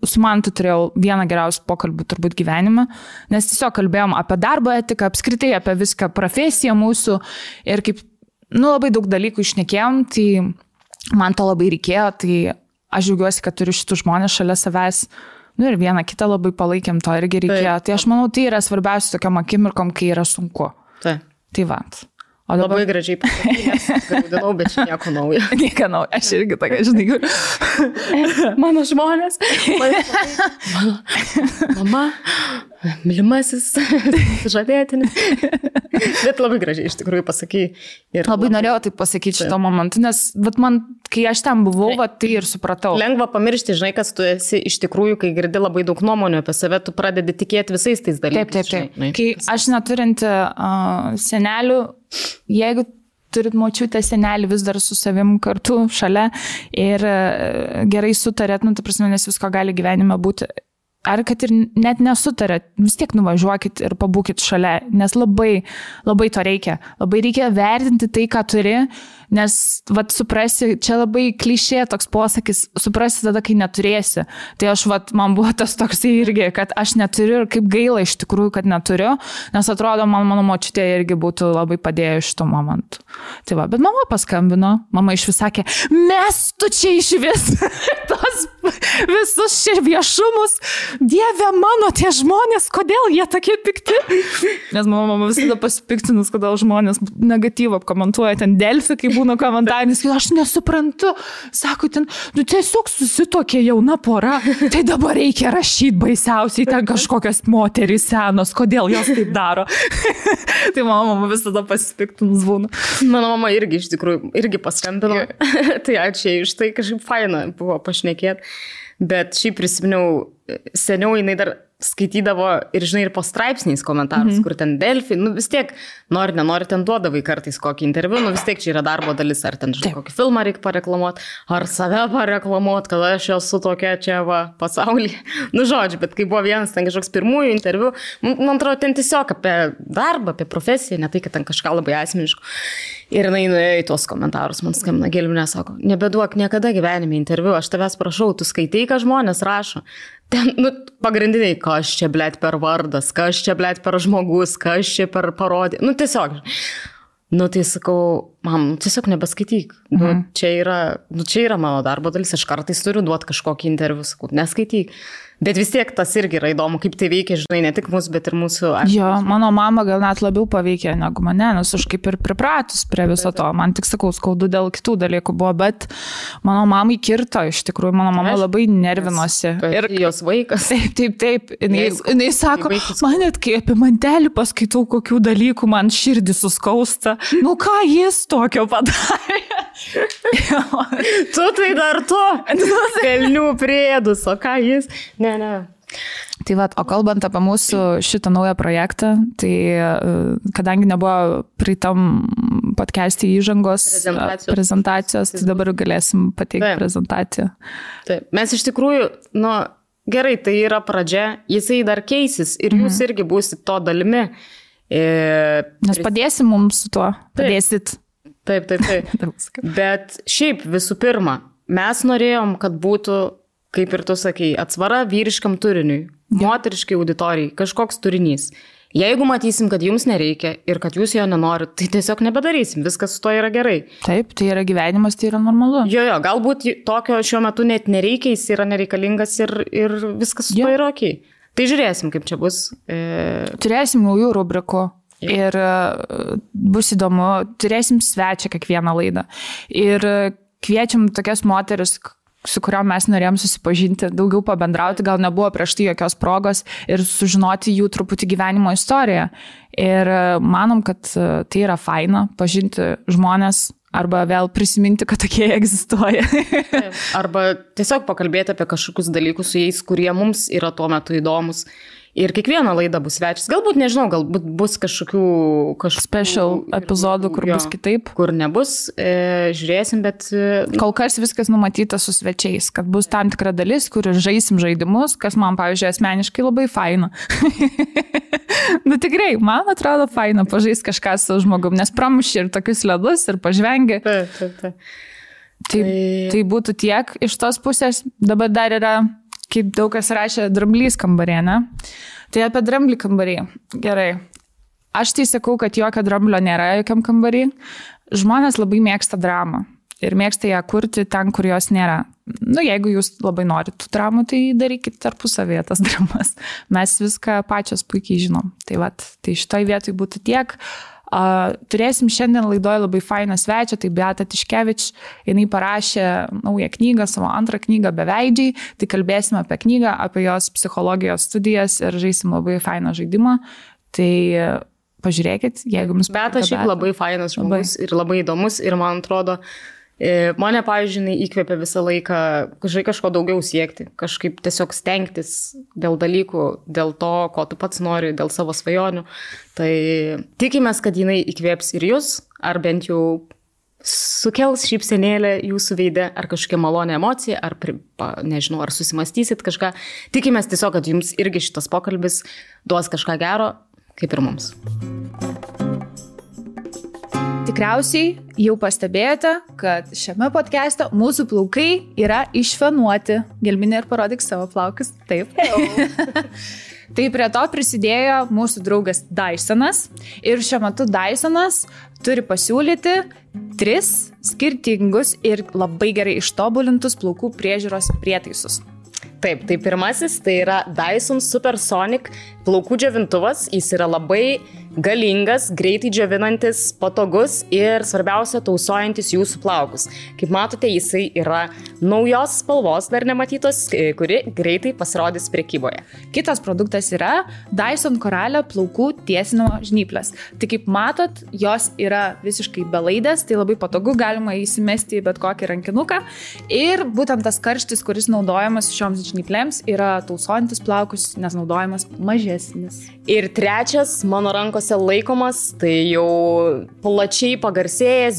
su Mantu turėjau vieną geriausių pokalbių turbūt gyvenime, nes tiesiog kalbėjom apie darbo etiką, apskritai apie viską, profesiją mūsų ir kaip, labai daug dalykų išnekėjom, tai man to labai reikėjo, tai aš džiaugiuosi, kad turiu šitų žmonės šalia savęs. Ir vieną kitą labai palaikėm, to irgi reikėjo. Tai aš manau, tai yra svarbiausia tokiam akimirkom, kai yra sunku. Tai va. O dabar... Labai gražiai pasakyti, gaudinau, bet čia nieko naujo. Nieko naujo, aš irgi tokia, žinai, mano žmonės, mama, mylimasis, žadėtinis. Bet labai gražiai iš tikrųjų pasakyti. Labai norėjau tai pasakyti šito momentu, nes man, kai aš ten buvau, tai ir supratau. Lengva pamiršti, žinai, kas tu esi iš tikrųjų, kai girdi labai daug nuomonių apie save, tu pradedi tikėti visais tais dalykais. Taip. Kai aš neturinti senelių, jeigu turit močiutę, senelį vis dar su savim kartu šalia ir gerai sutarėt, ta prasme, nes visko gali gyvenime būti. Ar kad ir net nesutarėt, vis tiek nuvažiuokit ir pabūkit šalia, nes labai, labai to reikia. Labai reikia vertinti tai, ką turi, nes, suprasi, čia labai klišė toks posakis, suprasi tada, kai neturėsi. Tai aš, man buvo tas toks irgi, kad aš neturiu ir kaip gaila iš tikrųjų, kad neturiu, nes atrodo, mano močiutė irgi būtų labai padėjo iš to momentų. Tai bet mama paskambino, mama iš vis sakė, mes tu čia iš vis tos visus čia viešumus, Dieve mano, tie žmonės, kodėl jie tokie pikti? Nes mama visada pasipiktinus, kodėl žmonės negatyvą komentuoja ten Delfi, kai būna komentaris, aš nesuprantu, sako ten, tiesiog susitokė jauna pora, tai dabar reikia rašyti baisiausiai, ten kažkokios moterys senos, kodėl jos taip daro. Tai mama visada pasipiktinus būna. Mano mama irgi iš tikrųjų, irgi paskambino, tai ačiū iš tai kažkaip faina buvo pašnekėti. Bet šiaip prisiminiau, seniau jinai dar skaitydavo ir, žinai, ir po straipsniais komentarus, kur ten Delfi, vis tiek, nenori ten duodavai kartais kokį interviu, vis tiek čia yra darbo dalis, ar ten, žinai, kokį filmą reikia pareklamuoti, ar save pareklamuoti, kad aš esu tokia čia pasaulyje. Žodžiu, bet kai buvo vienas ten kažkoks pirmųjų interviu, man atrodo, ten tiesiog apie darbą, apie profesiją, ne tai, kad ten kažką labai asmeniško. Ir jinai nuėjo į tuos komentarus, man skambina Gelminė, sako, nebeduok niekada gyvenime interviu, aš tavęs prašau, tu skaitai, ką žmonės rašo. Ten, pagrindiniai, kas čia, blėt, per vardas, kas čia, blėt, per žmogus, kas čia per parodį. Tiesiog. Tai sakau, mam, tiesiog nebeskaityk. Čia yra mano darbo dalis, aš kartais turiu duoti kažkokį interviu, sakau, neskaityk. Bet vis tiek tas irgi yra įdomu, kaip tai veikia, žinai, ne tik mūsų, bet ir mūsų... Jo, mano mama gal net labiau paveikė negu mane, nes aš kaip ir pripratus prie viso to. Man tik, sakau, skaudu dėl kitų dalykų buvo, bet mano mamai kirto, iš tikrųjų, mano mama labai nervinosi. Ir jos vaikas. Taip. Jinai sako, man net kai apie mantelį paskaitau kokių dalykų, man širdį suskausta. Ką jis tokio padarė? Tu tai dar to. Velnių priedus, o ką jis... Ne. Tai o kalbant apie mūsų šitą naują projektą, tai kadangi nebuvo pritam podcast'e įžangos prezentacijos, tai dabar galėsim pateikti prezentaciją. Taip. Mes iš tikrųjų, gerai, tai yra pradžia, jisai dar keisis ir jūs irgi būsit to dalimi. Nes padėsim mums su tuo, padėsit. Taip. Bet šiaip visų pirma, mes norėjom, kad būtų, kaip ir tu sakei, atsvara vyriškam turiniui, moteriškai auditorijai, kažkoks turinys. Jeigu matysim, kad jums nereikia ir kad jūs jo nenorit, tai tiesiog nebedarysim, viskas su to yra gerai. Taip, tai yra gyvenimas, tai yra normalu. Jo, galbūt tokio šiuo metu net nereikia, jis yra nereikalingas ir viskas su to yra ok. Tai žiūrėsim, kaip čia bus. Turėsim naujų rubrikų ir bus įdomu, turėsim svečią kiekvieną laidą. Ir kviečiam tokias moteris, su kuriuom mes norėjom susipažinti, daugiau pabendrauti, gal nebuvo prieš tai jokios progos ir sužinoti jų truputį gyvenimo istoriją. Ir manom, kad tai yra faina pažinti žmonės arba vėl prisiminti, kad tokie egzistuoja. Arba tiesiog pakalbėti apie kažkokius dalykus su jais, kurie mums yra tuo metu įdomus. Ir kiekvieną laidą bus svečias. Galbūt, nežinau, galbūt bus kažkokių special epizodų, kur bus kitaip. Kur nebus, žiūrėsim, bet... Kol kas viskas numatyta su svečiais, kad bus tam tikra dalis, kur žaisim žaidimus, kas man, pavyzdžiui, asmeniškai labai faina. Nu tikrai, man atrodo faina pažaisti kažką su žmogum, nes pramuši ir tokius ledus ir pažvengi. Tai būtų tiek iš tos pusės. Dabar dar yra... Kaip daug kas rašė, dramblys kambarė, ne? Tai apie dramblį kambarį. Gerai. Aš tai sakau, kad jokio dramblio nėra jokiam kambarį. Žmonės labai mėgsta dramą. Ir mėgsta ją kurti ten, kur jos nėra. Nu, jeigu jūs labai norit tų dramų, tai darykit tarpusavėje tas dramas. Mes viską pačios puikiai žinom. Tai šitoj vietoj būtų tiek. Turėsim šiandien laidoje labai fainą svečią, tai Beata Tiškevič, jinai parašė naują knygą, savo antrą knygą Beveidžiai, tai kalbėsim apie knygą, apie jos psichologijos studijas ir žaisim labai fainą žaidimą, tai pažiūrėkit, jeigu jums Beata šiaip labai fainas žmogus ir labai įdomus ir man atrodo, mane, pavyzdžiui, įkvėpė visą laiką kažko daugiau siekti, kažkaip tiesiog stengtis dėl dalykų, dėl to, ko tu pats nori, dėl savo svajonių. Tai tikimės, kad jinai įkvėps ir jūs, ar bent jau sukels šypsenėlę jūsų veide, ar kažkokia malonė emocija, ar, nežinau, ar susimastysit kažką. Tikimės tiesiog, kad jums irgi šitas pokalbis duos kažką gero, kaip ir mums. Tikriausiai jau pastebėjote, kad šiame podcast'e mūsų plaukai yra išfenuoti. Gelminė, ir parodyk savo plaukus. Taip. Tai prie to prisidėjo mūsų draugas Dysonas. Ir šiuo metu Dysonas turi pasiūlyti 3 skirtingus ir labai gerai ištobulintus plaukų priežiūros prietaisus. Taip, tai pirmasis tai yra Dyson Supersonic plaukų džiovintuvas. Jis yra labai galingas, greitai džiovinantis, patogus ir svarbiausia tausojantis jūsų plaukus. Kaip matote, jisai yra naujos spalvos, dar nematytos, kuri greitai pasirodys prekyboje. Kitas produktas yra Dyson Koralio plaukų tiesinimo žnyplės. Tai kaip matot, jos yra visiškai belaidės, tai labai patogu, galima įsimesti į bet kokį rankinuką. Ir būtent tas karštis, kuris naudojamas šioms žnyplėms, yra tausojantis plaukus, nes naudojamas mažesnis. Ir trečias mano rankose laikomas, tai jau plačiai pagarsėjęs,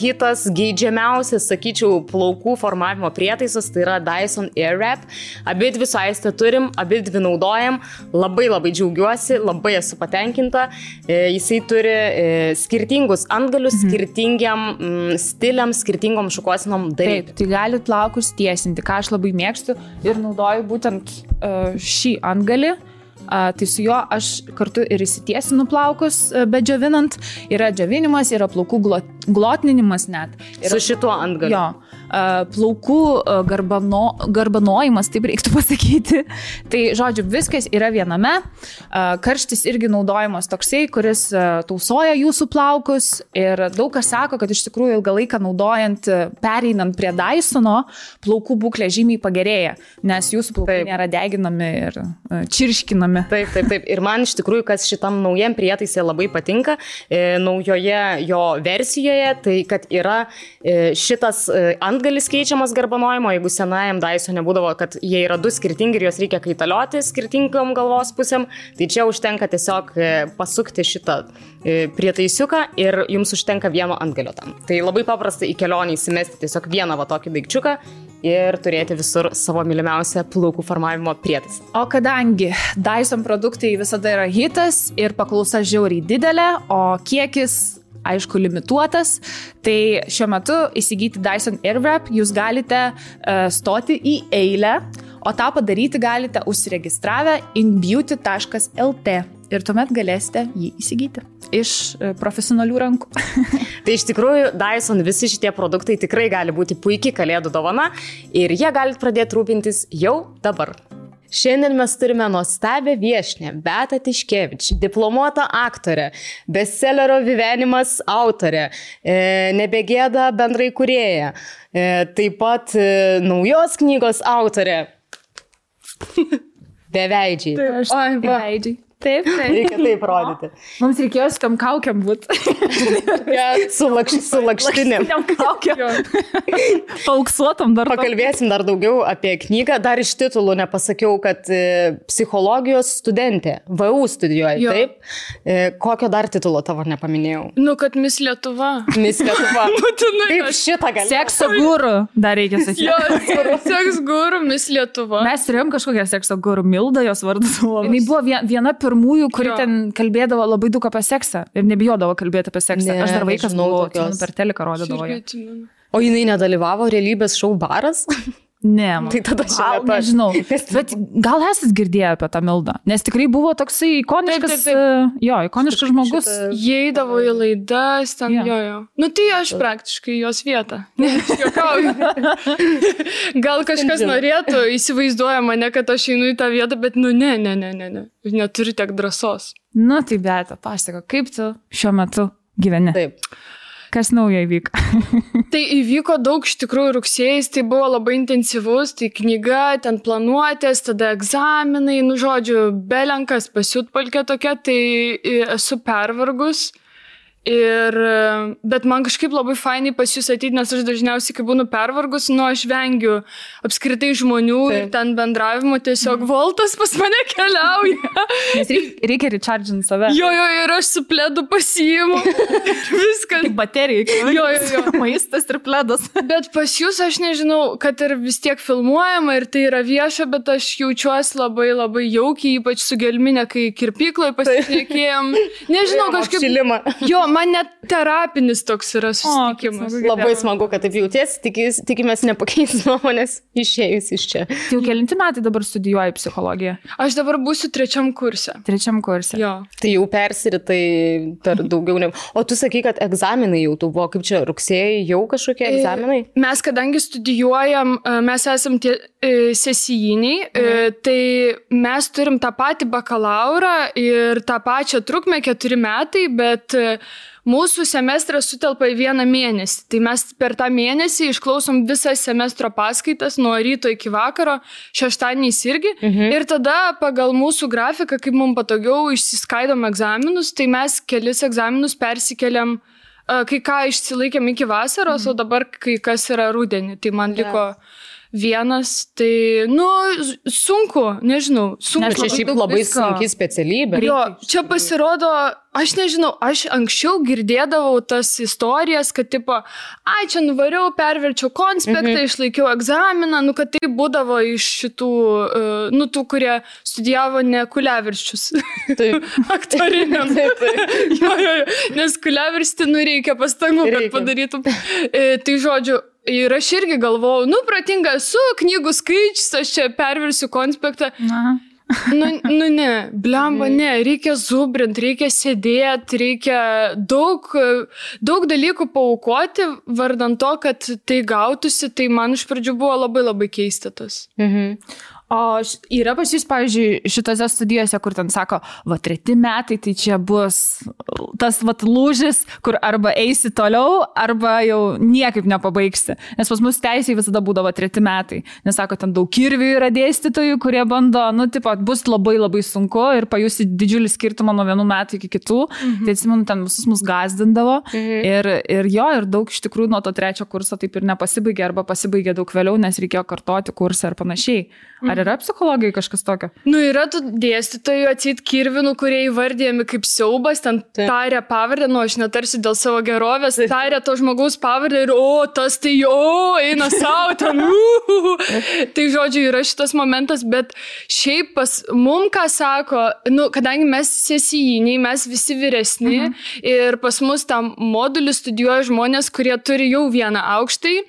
hitas, geidžiamiausias, sakyčiau, plaukų formavimo prietaisas, tai yra Dyson Airwrap. Abidvi su Aiste turim, abidvi naudojam, labai džiaugiuosi, labai esu patenkinta. Jisai turi skirtingus antgalius, skirtingiam stiliam, skirtingom šukuosinom daryti. Taip, tai galit plaukus tiesinti, ką aš labai mėgstu ir naudoju būtent šį antgalį. Tai su juo aš kartu ir įsitiesinu plaukus, bet džiovinant. Yra džiovinimas, yra plaukų glotninimas net. Su šituo antgaliu. Jo. Plaukų garbanojimas, taip reiktų pasakyti. Tai, žodžiu, viskas yra viename. Karštis irgi naudojimas toksai, kuris tausoja jūsų plaukus. Ir daug kas sako, kad iš tikrųjų ilgą laiką naudojant, pereinant prie Dysono, plaukų būklė žymiai pagerėja, nes jūsų plaukai nėra deginami ir čirškinami. Taip. Ir man iš tikrųjų, kas šitam naujam prietaisė labai patinka, naujoje jo versijoje, tai kad yra šitas antgalis keičiamas garbanojimo, jeigu senajam Dysone būdavo, kad jie yra 2 skirtingi ir juos reikia kaitalioti skirtingom galvos pusėm, tai čia užtenka tiesiog pasukti šitą prietaisiuką ir jums užtenka vieno antgalio tam. Tai labai paprasta į kelionį įsimesti tiesiog vieną tokį daikčiuką ir turėti visur savo mylimiausią plaukų formavimo prietaisą. O kadangi Dyson produktai visada yra hitas ir paklausa žiauriai didelė, o kiekis aišku limituotas, tai šiuo metu įsigyti Dyson Airwrap jūs galite stoti į eilę, o tą padaryti galite užsiregistravę inbeauty.lt. ir tuomet galėsite jį įsigyti iš profesionalių rankų. Tai iš tikrųjų Dyson visi šitie produktai tikrai gali būti puikiai kalėdų dovana ir jie galite pradėti rūpintis jau dabar. Šiandien mes turime nuostabią viešnią Beatą Tiškevič, diplomuotą aktorę, bestsellerio Vivenimas autorė, Nebegėda bendraįkūrėja, taip pat naujos knygos autorė. Beveidžiai. Beveidžiai. Taip. Reikia taip rodyti. Mums reikėjo su tam kaukiam būti. Su lakštinėm. Pauksuotam dar. Pakalbėsim dar daugiau apie knygą. Dar iš titulų nepasakiau, kad psichologijos studentė. VU studijuoja, taip? Kokio dar titulo tavo nepaminėjau? Nu, kad Miss Lietuva. Miss Lietuva. Kaip šitą gali? Sekso guru dar reikia sakyti. Jo, seks guru, Miss Lietuva. Mes turėjom kažkokią sekso guru, Milda jos vardas buvo. Jis buvo viena pirmųjų, kuri ten kalbėdavo labai daug apie seksą ir nebijodavo kalbėti apie seksą. Aš dar vaikas buvau, per teliką rodydavo. O jinai nedalyvavo realybės šou Baras? Ne, tai tada nežinau. Bet gal esat girdėję apie tą Mildą? Nes tikrai buvo toksai ikoniškas, ikoniškas žmogus. Jie eidavo į laidas, ten jo. Nu tai aš praktiškai jos vietą. Juokauju. Gal kažkas norėtų, įsivaizduoja mane, kad aš einu į tą vietą, bet ne. Neturi tiek drąsos. Nu tai Beata, pasako, kaip tu šiuo metu gyveni? Taip. Kas naujo įvyko? Tai įvyko daug, iš tikrųjų, rugsėjais, tai buvo labai intensyvus, tai knyga, ten planuotės, tada egzaminai, žodžiu, belenkas pasiutpalkė tokia, tai esu pervargus. Bet man kažkaip labai fainai pas jūs ateiti, nes aš dažniausiai, kai būnu pervargus, aš vengiu apskritai žmonių ir ten bendravimo, tiesiog voltas pas mane keliauja. Nes reikia recharginti save. Jo, ir aš su pledu pasiimu. Viskas. Kaip baterija. Jo. Maistas ir pledas. Bet pas jūs aš nežinau, kad ir vis tiek filmuojama ir tai yra vieša, bet aš jaučiuosi labai labai jaukiai, ypač su gelminė, kai kirpykloje pasitikėjom. Nežinau, kažkaip... Jo, man net terapinis toks yra susitikimas. Labai smagu, kad taip jautiesi, tikimės nepakeis nuomonės išėjus iš čia. Jau kelinti metai dabar studijuoji psichologiją? Aš dabar būsiu 3. kurse. 3. kurse. Jo. Tai jau persiritai per daugiau negu... O tu sakai, kad egzaminai jau tu buvo, kaip čia rugsėjai jau kažkokie egzaminai? Mes kadangi studijuojam, mes esam tie sesijiniai, tai mes turim tą patį bakalaurą ir tą pačią trukmę 4 metai, bet mūsų semestras sutelpa į 1 mėnesį. Tai mes per tą mėnesį išklausom visas semestro paskaitas nuo ryto iki vakaro, šeštadieniais irgi. Ir tada pagal mūsų grafiką, kaip mums patogiau, išsiskaidom egzaminus, tai mes kelis egzaminus persikeliam, kai ką išsilaikėm iki vasaros, o dabar kai kas yra rudenį. Tai man liko... Vienas, tai, sunku, nežinau. Nes čia šiaip labai sunki specialybė. Jo, čia pasirodo, aš nežinau, aš anksčiau girdėdavau tas istorijas, kad tipo, čia nuvariau, perverčiau konspektą, išlaikiau egzaminą, kad tai būdavo iš šitų, tų, kurie studijavo ne kuliavirščius. Taip. Aktoriniam. Jo, nes kuliavirsti, reikia pastangų, kad padarytum. Tai žodžiu, ir aš irgi galvojau, protinga esu, knygų skaičius, aš čia perversiu konspektą. Ne, blemba, ne, reikia zubrint, reikia sėdėti, reikia daug dalykų paaukoti, vardant to, kad tai gautųsi, tai man iš pradžių buvo labai labai keista tas. O yra pas jūs, pavyzdžiui, šitose studijose, kur ten sako, 3 metai, tai čia bus tas lūžis, kur arba eisi toliau, arba jau niekaip nepabaigsi. Nes pas mus teisėjai visada būdavo 3 metai. Nes sako, ten daug kirvių yra dėstytojų, kurie bando, bus labai labai sunku ir pajusi didžiulį skirtumą nuo 1 metų iki kitų. Tai atsimenu, ten visus mus gazdindavo. Ir daug iš tikrųjų nuo to 3 kurso taip ir nepasibaigė, arba pasibaigė daug vėliau, nes reikėjo kartoti kursą ir panašiai. Ar yra psichologijai kažkas tokio? Yra tų dėstytojų atsit kirvinų, kurie įvardėjami kaip siaubas, ten tarė pavardę, aš netarsiu dėl savo gerovės, tarė to žmogaus pavardę ir tas tai eina savo ten. Tai žodžiu, yra šitas momentas, bet šiaip pas mum, ką sako, kadangi mes sesijiniai, mes visi vyresni ir pas mus tam modulį studijuoja žmonės, kurie turi jau 1 aukštąjį,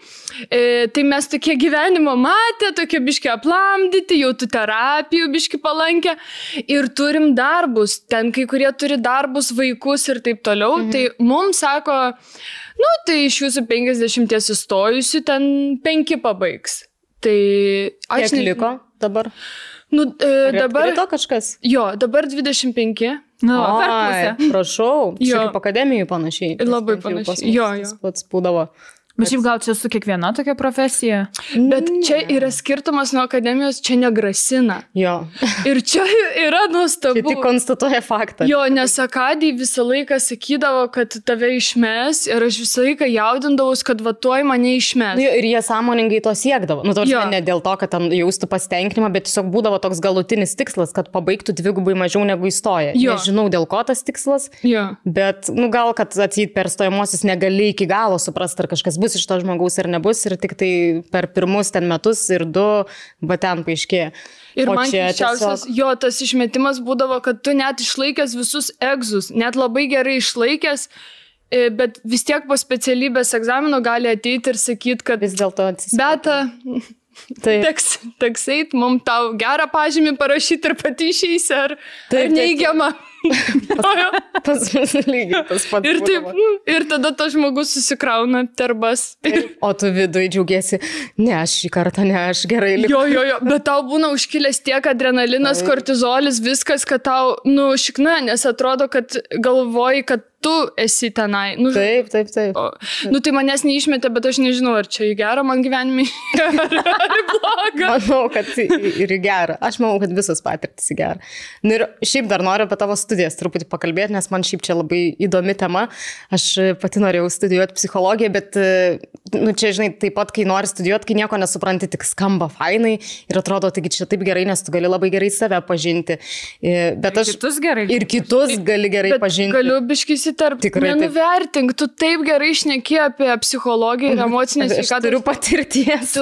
tai mes tokie gyvenimo matę, tokie biški aplamdyti, gydyti, jau tu terapijų biški palankę ir turim darbus. Ten kai kurie turi darbus, vaikus ir taip toliau. Tai mums sako, tai iš jūsų 50 įstojusių ten 5 pabaigs. Tai aš liko dabar. Dabar to kažkas? Jo, dabar 25. Per pusę. Prašau, čia kaip akademijų panašiai. Labai panašiai. Jo. Pats būdavo. Bet šiaip gal čia su kiekviena tokia profesija? Bet čia yra skirtumas nuo akademijos, čia negrasina. Jo. Ir čia yra nuostabu. Tai tik konstatuoja faktą. Jo, nes akadijai visą laiką sakydavo, kad tave išmes ir aš visą laiką jaudindavus, kad tuoj mane išmes. Ir jie sąmoningai to siekdavo. Ne dėl to, kad ten jaustų pasitenkinimą, bet tiesiog būdavo toks galutinis tikslas, kad pabaigtų 2 mažiau negu įstoja. Nežinau, dėl ko tas tikslas, bet gal, kad atseit per stojamosius negali iki galo suprasti, ar kažkas bus iš to žmogaus ir nebus, ir tik tai per pirmus ten metus ir 2 ten paaiškėja. Ir man keisčiausias, tas išmetimas būdavo, kad tu net išlaikęs visus egzus, net labai gerai išlaikęs, bet vis tiek po specialybės egzamino gali ateiti ir sakyti, kad vis dėlto Beta, teks eit, mums tau gerą pažymį parašyti ir pati išeisi, ar neigiamą. Pas mus lygiai tas pats. Ir tada tas žmogus susikrauna terbas. O tu viduje džiaugiesi, ne, aš šį kartą, ne, aš gerai likau. Jo, bet tau būna užkilęs tiek adrenalinas, kortizolis, viskas, kad tau, šikna, nes atrodo, kad galvoji, kad tu esi tenai. Taip. Tai manęs neišmetė, bet aš nežinau, ar čia į gerą man gyvenimį, ar į blogą. Manau, kad ir į gerą. Aš manau, kad visas patirtis į gerą. Ir šiaip dar noriu apie tavo studijas truputį pakalbėti, nes man šiaip čia labai įdomi tema. Aš pati norėjau studijuoti psichologiją, bet čia, žinai, taip pat, kai nori studijuoti, kai nieko nesupranti, tik skamba fainai ir atrodo, taigi čia taip gerai, nes tu gali labai gerai save pažinti. Bet aš ir kitus gali gerai pažinti. Galiu biškis nenuvertink, tu taip gerai šneki apie psichologiją ir emocinę sveikatą. Aš turiu patirties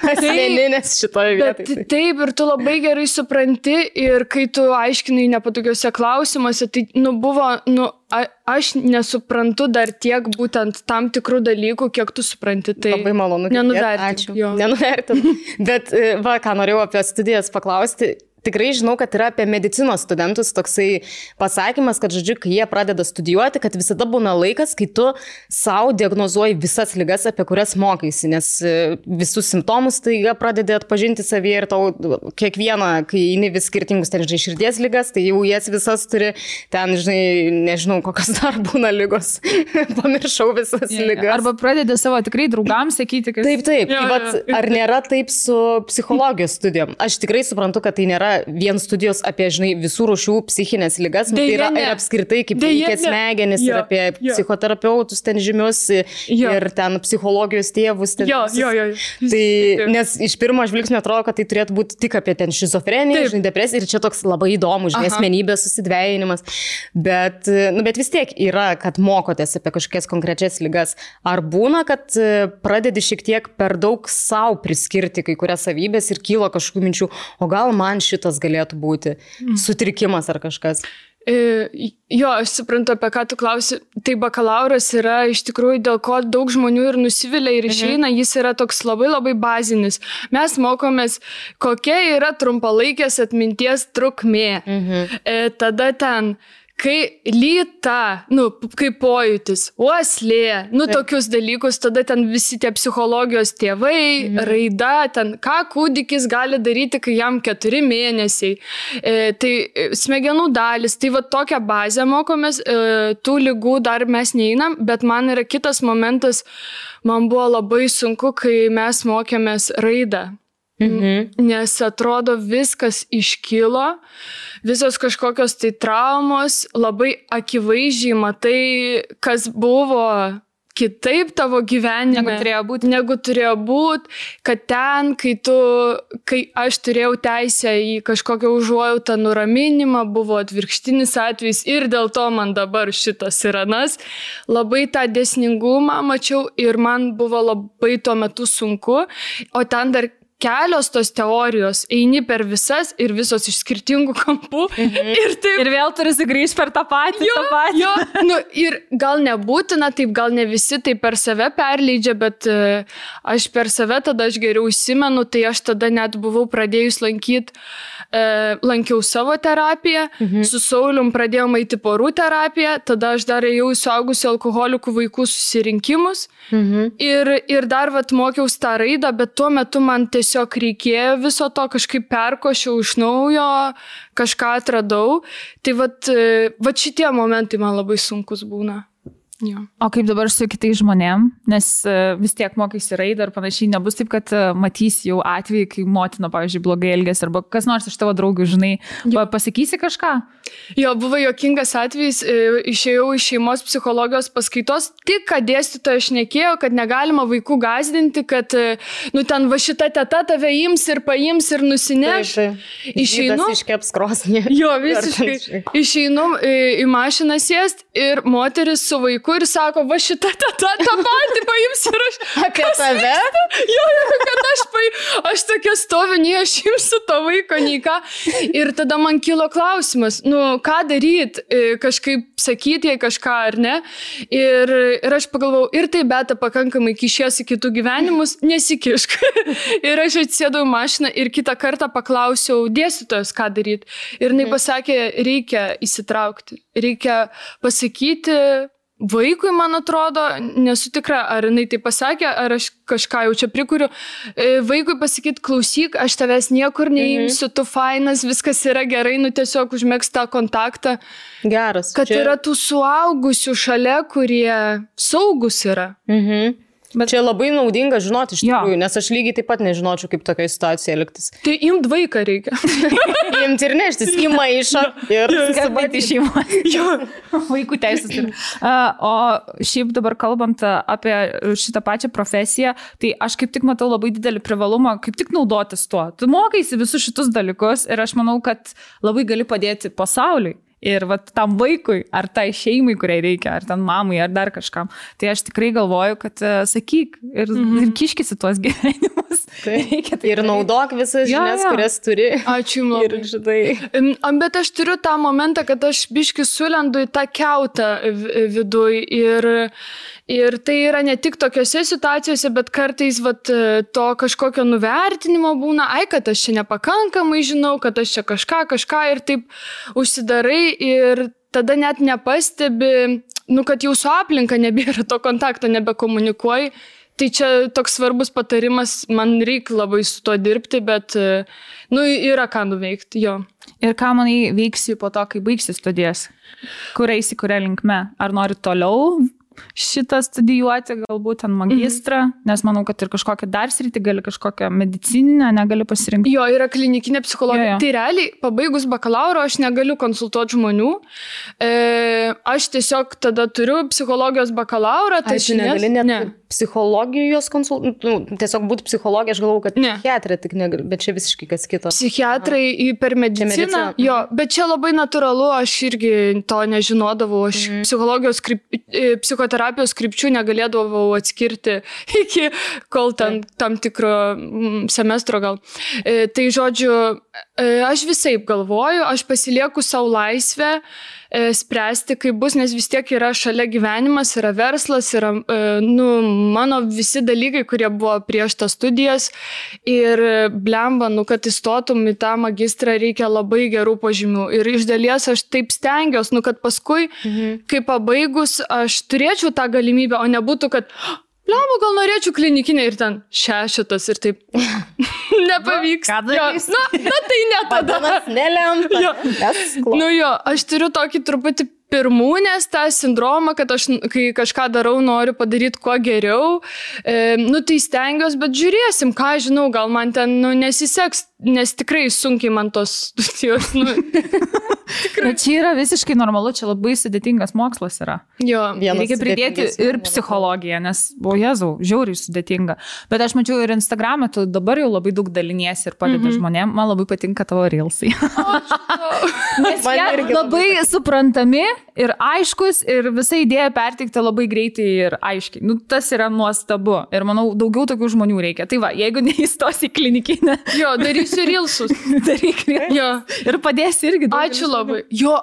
asmeninės šitoje vietoje. Taip, ir tu labai gerai supranti ir kai tu aiškinai nepatogiuose klausimuose, tai aš nesuprantu dar tiek būtent tam tikrų dalykų, kiek tu supranti. Tai labai malonu. Nenuvertink. Nenuvertink. Bet ką norėjau apie studijas paklausti. Tikrai žinau, kad yra apie medicinos studentus toksai pasakymas, kad, žodžiu, kai jie pradeda studijuoti, kad visada būna laikas, kai tu savo diagnozuoji visas ligas, apie kurias mokaisi, nes visus simptomus tai jie pradedi atpažinti savyje ir tau kiekvieną, kai eini vis skirtingus, ten, žinai, širdies ligas, tai jau jas visas turi, ten, žinai, nežinau, kokios dar būna ligos, pamiršau visas ligas. Arba pradedi savo tikrai draugams sakyti, kad... Taip. Ar nėra taip su psichologijos studijom? Aš tikrai suprantu, kad tai nėra vien studijos apie, žinai, visų rūšių psichinės ligas, tai yra ir apskritai kaip veikia smegenis ir apie psichoterapeutus ten žymius ir ten psichologijos tėvus. Tai, nes iš pirmo žvilgsnio atrodo, kad tai turėtų būti tik apie ten šizofreniją, žinai, depresiją ir čia toks labai įdomus, žinai, asmenybės susidvejinimas. Bet vis tiek yra, kad mokotės apie kažkokias konkrečias ligas. Ar būna, kad pradedi šiek tiek per daug savo priskirti kai kurias savybės ir kyla kažkokių minčių, o gal man šitas galėtų būti sutrikimas ar kažkas? Jo, aš suprantu, apie ką tu klausi. Tai bakalauras yra iš tikrųjų, dėl ko daug žmonių ir nusivilia ir išeina, jis yra toks labai labai bazinis. Mes mokomės, kokia yra trumpalaikės atminties trukmė. Tada ten... Kai lyta, kaip pojūtis, uoslė, tokius dalykus, tada ten visi tie psichologijos tėvai, raida, ten ką kūdikis gali daryti, kai jam 4 mėnesiai. Tai smegenų dalis, tai va tokią bazę mokomės, tų ligų dar mes neeinam, bet man yra kitas momentas, man buvo labai sunku, kai mes mokėmės raidą. Nes atrodo viskas iškilo, visos kažkokios tai traumos, labai akivaizdžiai matai, kas buvo kitaip tavo gyvenime, negu turėjo būti, kad ten, kai aš turėjau teisę į kažkokią užuojautą nuraminimą, buvo atvirkštinis atvejis ir dėl to man dabar šitas ir anas, labai tą dėsningumą mačiau ir man buvo labai tuo metu sunku, o ten dar kelios tos teorijos, eini per visas ir visos iš skirtingų kampų. Ir vėl turi sugrįžti per tą patį. Jo, nu, ir gal nebūtina, taip gal ne visi tai per save perleidžia, bet aš per save tada aš geriau įsimenu, tai aš tada net buvau pradėjus lankiau savo terapiją, su Saulium pradėjom eiti porų terapiją, tada aš dar ėjau į suaugusių alkoholikų vaikų susirinkimus ir dar vat mokiaus tą raidą, bet tuo metu man tiesiog reikėjo viso to, kažkaip perkošiau iš naujo, kažką atradau, tai vat šitie momentai man labai sunkus būna. Jo. O kaip dabar su kitais žmonėm, nes vis tiek mokaisi raidą ir panašiai, nebus taip, kad matys jau atvejį, kai motina, pavyzdžiui, blogai elgės, arba kas nors iš tavo draugų, žinai, pasakysi kažką? Jo, buvo juokingas atvejis, išėjau iš šeimos psichologijos paskaitos, tik kad dėstytoja šnekėjo, kad negalima vaikų gąsdinti, kad, nu, ten va šita teta tave ims ir paims ir nusineš. Išeinu. Iškeps krosnį. Jo, visiškai. Išeinu į mašiną sėst ir moteris su vaiku ir sako, va šita teta tą patį paims ir aš... Apie tave? Jo, kad aš tokia stoviu, nei aš imsiu to vaiko, nei ką. Ir tada man kilo klausimas, nu, ką daryti, kažkaip sakyti jai kažką ar ne. Ir aš pagalvojau, ir tai beta pakankamai kišiesi kitų gyvenimus, nesikišk. Ir aš atsėdau į mašiną ir kitą kartą paklausiau dėstytojos, ką daryti. Ir jinai pasakė, reikia įsitraukti, reikia pasakyti vaikui, man atrodo, nesu tikra, ar jinai tai pasakė, ar aš kažką jau čia prikuriu. Vaikui pasakyti, klausyk, aš tavęs niekur neimsiu, tu fainas, viskas yra gerai, nu tiesiog užmėgst tą kontaktą. Geras. Kad yra tų suaugusių šalia, kurie saugus yra. Bet čia labai naudinga žinoti iš tikrųjų, nes aš lygiai taip pat nežinočiau, kaip tokia situacija elgtis. Tai imt vaiką reikia. Imt ir neštis į maišą ir skambinti šeimos. Vaikų teisės. O šiaip dabar kalbant apie šitą pačią profesiją, tai aš kaip tik matau labai didelį privalumą, kaip tik naudotis tuo. Tu mokaisi visus šitus dalykus ir aš manau, kad labai gali padėti pasauliui. Ir vat tam vaikui, ar tai šeimai, kuriai reikia, ar ten mamai, ar dar kažkam. Tai aš tikrai galvoju, kad sakyk ir kiškisi tuos gyvenimus. Ir naudok visas žinias, kurias turi. Ačiū labai. Bet aš turiu tą momentą, kad aš biški sulendu į tą kiautą viduj ir tai yra ne tik tokiose situacijose, bet kartais vat, to kažkokio nuvertinimo būna, kad aš čia nepakankamai žinau, kad aš čia kažką ir taip užsidarai ir tada net nepastebi, nu, kad jau su aplinka nebėra to kontakto, nebekomunikuoji. Tai čia toks svarbus patarimas, man reikia labai su to dirbti, bet nu, yra ką nuveikti, jo. Ir ką manai veiksi po to, kai baigsi studijas? Kur eisi, kuria linkme? Ar nori toliau šitą studijuoti, galbūt ten magistrą, nes manau, kad ir kažkokią dar sritį gali, kažkokią medicininę negali pasirinkti. Jo, yra klinikinė psichologija. Jo. Tai realiai, pabaigus bakalauro, aš negaliu konsultuoti žmonių. Aš tiesiog tada turiu psichologijos bakalaurą. Tai negali net psichologijos konsultuoti, tiesiog būti psichologija, aš galvoju, kad psichiatrė tik negali, bet čia visiškai kas kito. Psichiatrai per mediciną, jo, bet čia labai natūralu, aš irgi to nežinodavau, aš psichologijos psichoterapijos krypčių negalėdavau atskirti iki kol tam tikro semestro gal. Tai žodžiu, aš visaip galvoju, aš pasilieku savo laisvę spręsti, kaip bus, nes vis tiek yra šalia gyvenimas, yra verslas, yra mano visi dalykai, kurie buvo prieš tas studijas ir blemba, kad įstotum į tą magistrą reikia labai gerų pažymių ir iš dalies aš taip stengiuosi, kad paskui, kai pabaigus, aš turėčiau tą galimybę, o nebūtų, kad blemba, gal norėčiau klinikinę ir ten 6 ir taip nepavyks. Ką darys? Na, tai ne tada. Padanas nelemta. Aš turiu tokį truputį pirmūnės tą sindromą, kad aš, kai kažką darau, noriu padaryti kuo geriau. Tai stengiuosi, bet žiūrėsim, ką žinau, gal man ten nesiseks, nes tikrai sunkiai man tos studijos. Bet čia yra visiškai normalu, čia labai sudėtingas mokslas yra. Jo, reikia pridėti ir psichologiją, nes, Jėzau, žiauriai sudėtinga. Bet aš mačiau ir Instagram'e, tu dabar jau labai daug daliniesi ir padedi žmonėm. Man labai patinka tavo reelsai. Nes jie labai suprantami ir aiškus ir visą idėją perteikti labai greitai ir aiškiai. Nu, tas yra nuostabu ir manau, daugiau tokių žmonių reikia. Tai va, jeigu neįstos į klinikinę. Jo, darysiu rilsus. Daryk rilsus. Ir padėsi irgi. Ačiū labai. Jo,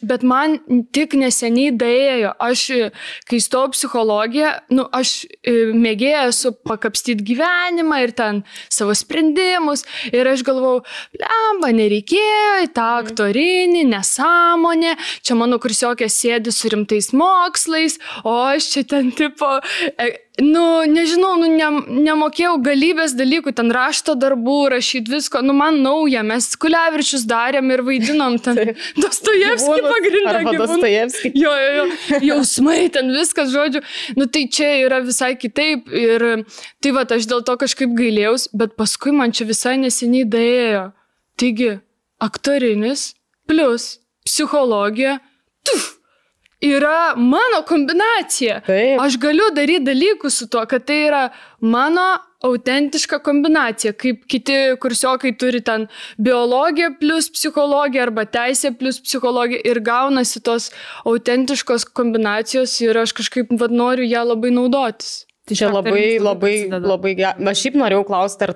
bet man tik neseniai daėjo. Aš, kai stojau psichologiją, nu, aš mėgėjau esu pakapstyti gyvenimą ir ten savo sprendimus. Ir aš galvau, blemba, nereikėjo į tą aktorinį, nesąmonę. Čia mano kursiokė sėdi su rimtais mokslais, o aš čia ten tipo... nežinau, nemokėjau galybės dalykų, ten rašto darbų, rašyti visko, man nauja, mes Kuliavičius darėm ir vaidinom ten Dostojevskį pagrindą. Arba Dostojevskį. Jo, jausmai, ten viskas, žodžiu. Tai čia yra visai kitaip ir tai va, aš dėl to kažkaip gailėjaus, bet paskui man čia visai neseniai daėjo. Taigi, aktorinis plus psichologija, yra mano kombinacija. Taip. Aš galiu daryti dalykus su tuo, kad tai yra mano autentiška kombinacija, kaip kiti kursiokai turi ten biologiją plus psichologiją arba teisę plus psichologiją ir gaunasi tos autentiškos kombinacijos ir aš kažkaip noriu ją labai naudotis. Čia labai gerai. Aš šiaip norėjau klausti,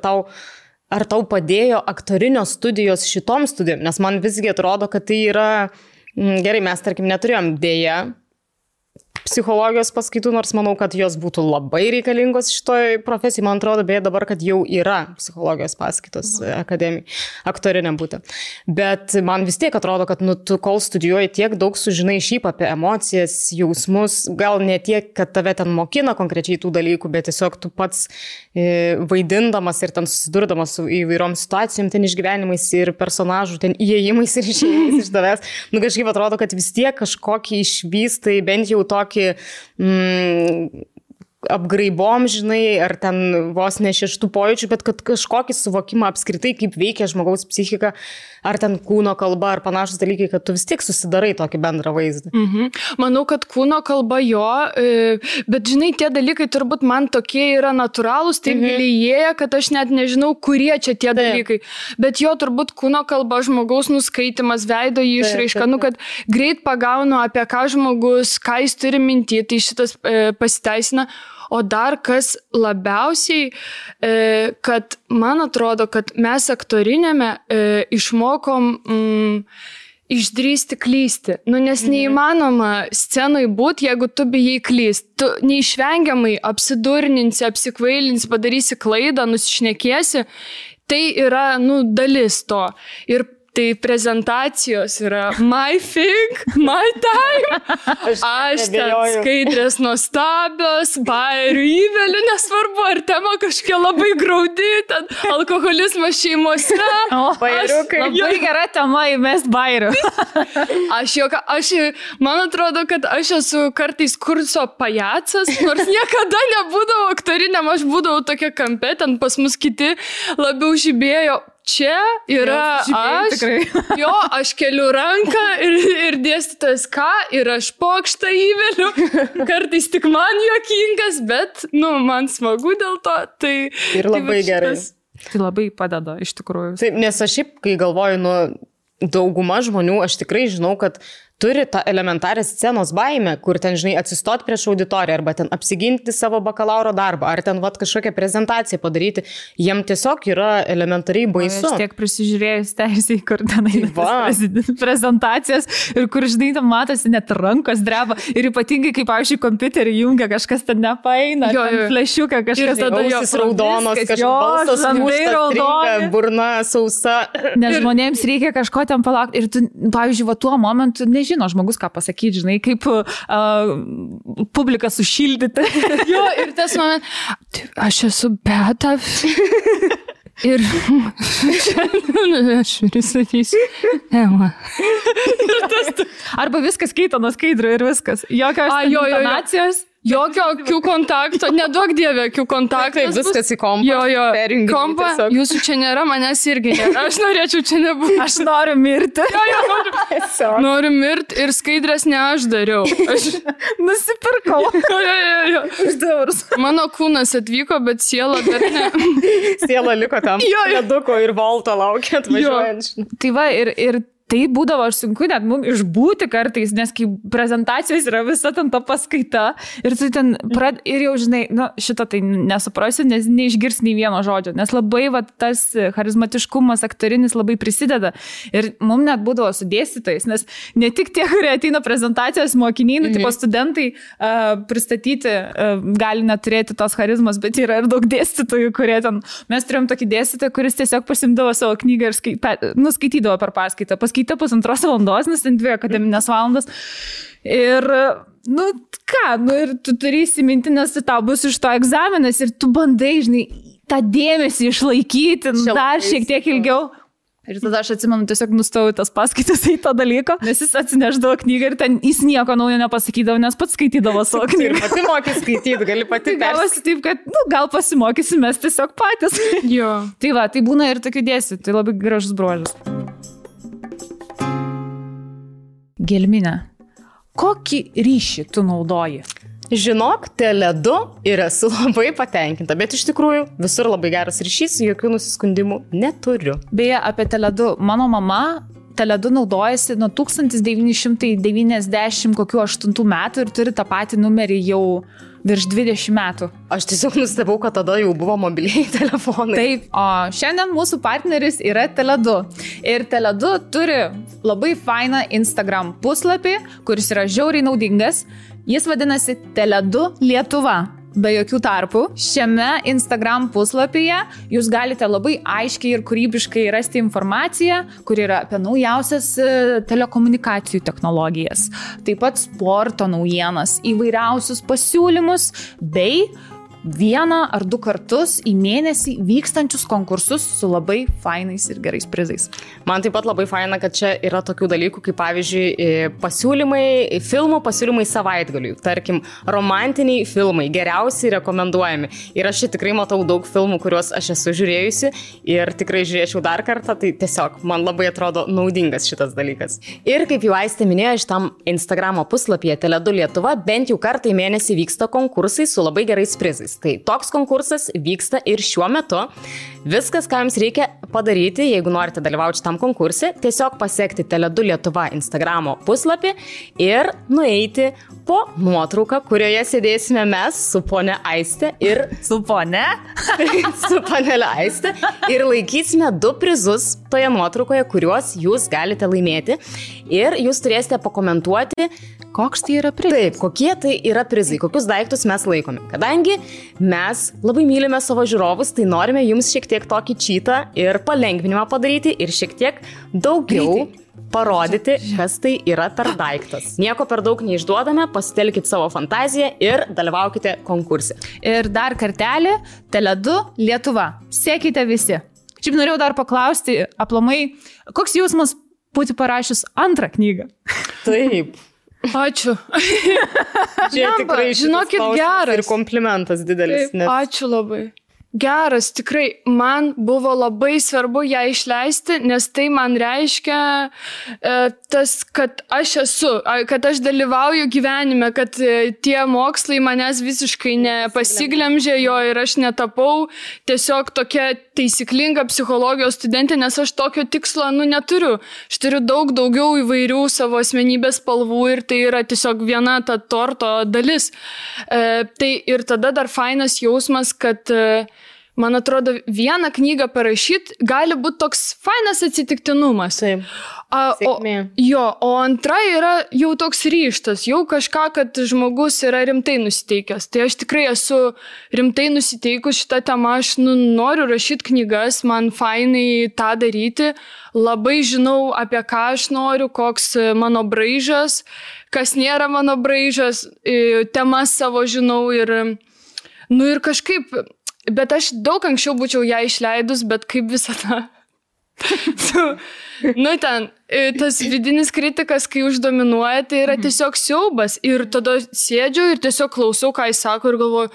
ar tau padėjo aktorinio studijos šitom studijom, nes man visgi atrodo, kad tai yra... Gerai, mes, tarkim, neturėjom dėja psichologijos paskaitų, nors manau, kad jos būtų labai reikalingos šitoj profesijai. Man atrodo, beje, dabar, kad jau yra psichologijos paskaitos akademijai, aktoriniam būti. Bet man vis tiek atrodo, kad tu kol studijuoji tiek daug sužinai šiaip apie emocijas, jausmus, gal ne tiek, kad tave ten mokina konkrečiai tų dalykų, bet tiesiog tu pats vaidindamas ir ten susidurdamas su įvairiom situacijom, ten išgyvenimais ir personažų, ten įėjimais ir išėjimais iš tavęs. Kažkaip atrodo, kad vis tiek kažkokį išvystai, bent jau tokį apgraibom, žinai, ar ten vos ne šeštų pojūčių, bet kad kažkokį suvokimą apskritai, kaip veikia žmogaus psichika, ar ten kūno kalba, ar panašus dalykai, kad tu vis tiek susidarai tokį bendrą vaizdą. Manau, kad kūno kalba jo, bet žinai, tie dalykai turbūt man tokie yra natūralūs, taip gilėja, kad aš net nežinau, kurie čia tie dalykai. Bet jo turbūt kūno kalba, žmogaus nuskaitimas, veido išraiška, kad greit pagaunu, apie ką žmogus, ką jis turi minti, tai šitas pasiteisina. O dar kas labiausiai, kad man atrodo, kad mes aktorinėme išmokom išdrįsti klysti. Nes neįmanoma scenai būti, jeigu tu bijai klysti. Tu neišvengiamai apsidurninsi, apsikvailinsi, padarysi klaidą, nusišnekėsi. Tai yra, dalis to. Ir tai prezentacijos yra my thing, my time. Aš ten skaidrės nuostabios, bairių įvelių, nesvarbu, ar tema kažkokia labai graudi, ten alkoholizmas šeimose. Bairiukai. Labai gera tema įmest bairių. Man atrodo, kad aš esu kartais kurso pajacas, nors niekada nebūdavau aktoriniam, aš būdavau tokia kampe, ten pas mus kiti labiau žibėjo. Čia yra aš keliu ranką ir dėstytojas ir aš pokštą įveliu, kartais tik man juokingas, bet, man smagu dėl to, tai... Ir labai gerai. Tai labai padeda, iš tikrųjų. Taip, nes aš šiaip, kai galvoju, dauguma žmonių, aš tikrai žinau, kad turi tą elementarę scenos baimę, kur ten, žinai, atsistot prieš auditoriją, arba ten apsiginti savo bakalauro darbą, ar ten kažkokią prezentaciją padaryti. Jiem tiesiog yra elementariai baisu. Aš tiek prisižiūrėjus teisiai, kur ten prezentacijas ir kur, žinai, tam matosi net rankos dreba. Ir ypatingai, kaip, pavyzdžiui, kompiuterį jungia, kažkas ten nepaeina, flešiuką, kažkas tada ausis raudonos, kažkas balsas muštas, burna sausa. Nes žmonėms reikia kažko ten palaukti. Ir tu, pavyzdžiui, tuo momentu nežinai, žmogus ką pasakyti, žinai, kaip publiką sušildyti. Jo, ir tas moment, aš esu Beata. Ir aš pristatysiu. Arba viskas keito nuo skaidrio ir viskas. Jokios intonacijos. Jokio akių kontakto, neduok dievė akių kontakto. Taip, viskas į kompą. Kompą, jūsų čia nėra, manęs irgi nėra. Aš norėčiau čia nebūti. Aš noriu mirti. Noriu mirti ir skaidrės ne aš dariau. Aš nusipirkau. Už €2. Mano kūnas atvyko, bet siela dar ne. Siela liko tam. Leduko ir Volto laukia atvažiuojant. Tai va, ir tai būdavo sunku net mums išbūti kartais, nes kai prezentacijos yra visa ten ta paskaita ir tu ten ir jau žinai, šitą tai nesuprasiu, nes neišgirs nei vieno žodžio, nes labai tas charizmatiškumas aktorinis labai prisideda ir mums net būdavo su dėstytojais, nes ne tik tie, kurie ateina prezentacijos mokiniai, tipo studentai pristatyti gali neturėti tos charizmos, bet yra ir daug dėstytojų, kurie ten, mes turėjom tokį dėstytoją, kuris tiesiog pasimdavo savo knygą ir skaitydavo per paskaitą. Paskaitė 1,5 valandos, nes ten 2 akademinės valandas. Ir, ir tu turi įsiminti, nes tau bus iš to egzaminas ir tu bandai, žinai, tą dėmesį išlaikyti dar šiek tiek ilgiau. Ir tada aš atsimenu, tiesiog nustojau tas paskaitas į to dalyko, nes jis atsineždavo knygą ir ten jis nieko naujo nepasakydavo, nes pats skaitydavo savo knygą. Ir pati moki skaityti, gali pati gavosi taip, kad gal pasimokysim mes tiesiog patys. Jo. Tai būna ir tokių dėstytojų, tai labai gražus bruožas. Gelmine, kokį ryšį tu naudoji? Žinok, Tele2 ir esu labai patenkinta, bet iš tikrųjų visur labai geras ryšys, jokių nusiskundimų neturiu. Beje, apie Tele2, mano mama Tele2 naudojasi nuo 1998 metų ir turi tą patį numerį jau virš 20 metų. Aš tiesiog nustebau, kad tada jau buvo mobiliai telefonai. Taip, o šiandien mūsų partneris yra Tele2. Ir Tele2 turi labai fainą Instagram puslapį, kuris yra žiauriai naudingas. Jis vadinasi Tele2 Lietuva. Be jokių tarpų. Šiame Instagram puslapyje jūs galite labai aiškiai ir kūrybiškai rasti informaciją, kur yra apie naujausias telekomunikacijų technologijas, taip pat sporto naujienas, įvairiausius pasiūlymus bei 1 ar 2 kartus į mėnesį vykstančius konkursus su labai fainais ir gerais prizais. Man taip pat labai faina, kad čia yra tokių dalykų, kaip pavyzdžiui filmų pasiūlymai savaitgaliui. Tarkim, romantiniai filmai, geriausiai rekomenduojami. Ir aš čia tikrai matau daug filmų, kuriuos aš esu žiūrėjusi ir tikrai žiūrėčiau dar kartą, tai tiesiog man labai atrodo naudingas šitas dalykas. Ir kaip jau Aistė minėjo, šitam Instagramo puslapyje Tele2 Lietuva bent jau kartą į mėnesį vyksta konkursai su labai gerais prizais. Tai toks konkursas vyksta ir šiuo metu. Viskas, ką jums reikia padaryti, jeigu norite dalyvauti šitam konkurse, tiesiog pasiekti Tele2 Lietuva Instagramo puslapį ir nueiti po nuotrauką, kurioje sėdėsime mes su ponia Aistė ir su panelė Aistė ir laikysime 2 prizus toje nuotraukoje, kuriuos jūs galite laimėti ir jūs turėsite pakomentuoti, koks tai yra prizai. Taip, kokie tai yra prizai, kokius daiktus mes laikome. Kadangi mes labai mylime savo žiūrovus, tai norime jums šiek tiek tokį čytą ir palengvinimą padaryti ir šiek tiek daugiau parodyti, kas tai yra per daiktas. Nieko per daug neišduodame, pasitelkit savo fantaziją ir dalyvaukite konkurse. Ir dar kartelį, Tele2 Lietuva. Sekite visi. Šiaip norėjau dar paklausti, aplamai, koks jausmas būti parašius 2 knygą? Taip. Ačiū. Čia tikrai žinokit, geras. Ir komplimentas didelis. Taip, ačiū labai. Geras, tikrai, man buvo labai svarbu ją išleisti, nes tai man reiškia tas, kad aš esu, kad aš dalyvauju gyvenime, kad tie mokslai manęs visiškai nepasiglemžė jo ir aš netapau tiesiog tokia taisyklinga psichologijos studentė, nes aš tokio tikslo neturiu. Aš turiu daug daugiau įvairių savo asmenybės spalvų ir tai yra tiesiog viena ta torto dalis. Tai ir tada dar fainas jausmas, kad man atrodo, 1 knygą parašyti gali būti toks fainas atsitiktinumas. Taip. O 2 yra jau toks ryžtas, jau kažką, kad žmogus yra rimtai nusiteikęs. Tai aš tikrai esu rimtai nusiteikus šitą temą, aš noriu rašyti knygas, man fainai tą daryti, labai žinau, apie ką aš noriu, koks mano braižas, kas nėra mano braižas, temas savo žinau ir kažkaip. Bet aš daug anksčiau būčiau ją išleidus, bet kaip visada. Tas vidinis kritikas, kai uždominuoja, tai yra tiesiog siaubas. Ir tada sėdžiu ir tiesiog klausau, ką jis sako ir galvoju,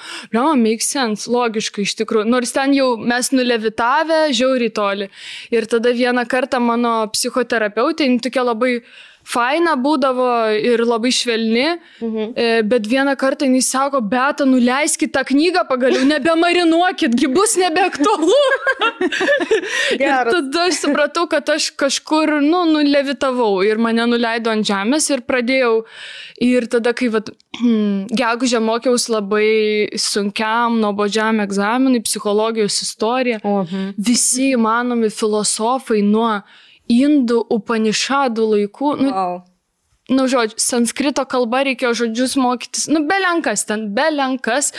make sense, logiškai iš tikrųjų. Nors ten jau mes nulevitavę, žiauriai toli. Ir tada vieną kartą mano psichoterapeutė, tokia labai faina būdavo ir labai švelni, bet vieną kartą jis sako, Beata, nuleiskit tą knygą pagaliau, nebemarinuokit, gi bus nebeaktualu. Ir tada aš supratau, kad aš kažkur, nulevitavau ir mane nuleido ant žemės ir pradėjau. Ir tada, kai gegužę mokiausi labai sunkiam, nuobodžiam egzaminui, psichologijos istorija, visi įmanomi filosofai nuo indų Upanišadų laikų, žodžiu, sanskrito kalba reikėjo žodžius mokytis, belenkas.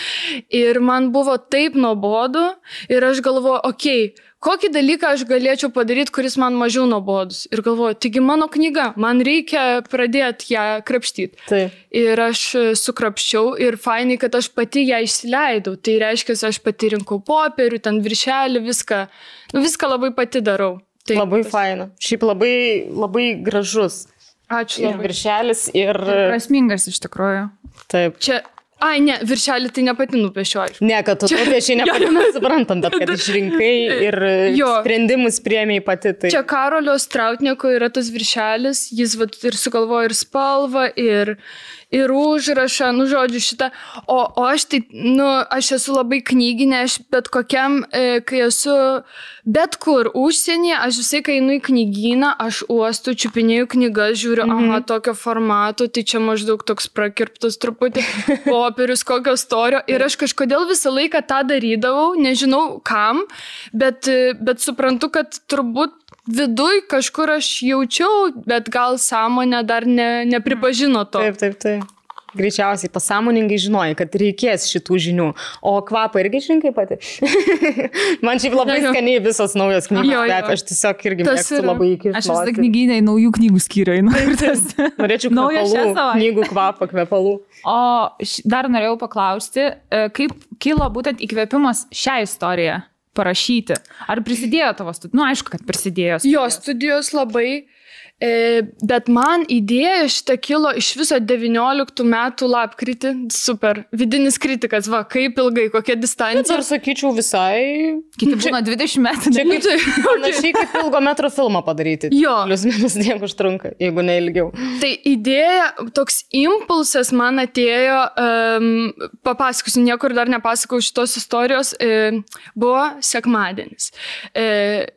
Ir man buvo taip nuobodu ir aš galvoju, kokį dalyką aš galėčiau padaryti, kuris man mažiau nuobodus. Ir galvoju, taigi mano knyga, man reikia pradėti ją krapštyti. Taip. Ir aš sukrapščiau ir fainai, kad aš pati ją išsileidau. Tai reiškia, aš pati rinkau popierių, ten viršelį, viską labai pati darau. Taip, labai faina. Šiaip labai, labai gražus. Ačiū. Ir viršelis, ir... Prasmingas iš tikrųjų. Taip. Čia... ne, viršelį tai nepati nupiešiu. Ne, kad tu nupiešiai nepati, mes suprantam, bet kad išrinkai ir sprendimus priėmėjai pati. Tai... Čia Karolio Strautnieko yra tas viršelis, jis ir sugalvojo ir spalvą, ir užrašą, žodžiu šitą. O aš tai, aš esu labai knyginė, aš bet kokiam, kai esu bet kur užsienyje, aš visai, kai einu į knygyną, aš uostu, čiupinėjau knygas, žiūriu, tokio formato, tai čia maždaug toks prakirptas truputį popierius, kokio storio. Ir aš kažkodėl visą laiką tą darydavau, nežinau kam, bet suprantu, kad turbūt viduj kažkur aš jaučiau, bet gal sąmonė dar nepripažino to. Taip. Greičiausiai pasąmoningai žinojai, kad reikės šitų žinių. O kvapą irgi išrinkai pati? Man šiaip labai skaniai visos naujos knygos kvepia. Aš tiesiog irgi mėgstu labai įkišti. Aš visą knygynę į naujų knygų skyrių. Norėčiau knygų kvapą, kvepalų. O dar norėjau paklausti, kaip kilo būtent įkvėpimas šią istoriją parašyti? Ar prisidėjo tavo studijos? Aišku, kad prisidėjo. Jo, studijos labai, bet man idėja šitą kilo iš viso 19 metų lapkritį. Super. Vidinis kritikas, kaip ilgai, kokia distancija. Bet ar sakyčiau visai... Kiti būna 20 metų. Čia panašiai kaip ilgo metro filmą padaryti. Jo. Plius minus tiek užtrunka, jeigu ne ilgiau. Tai idėja, toks impulsas man atėjo, papasakosiu, niekur dar nepasakau šitos istorijos, buvo sekmadienis.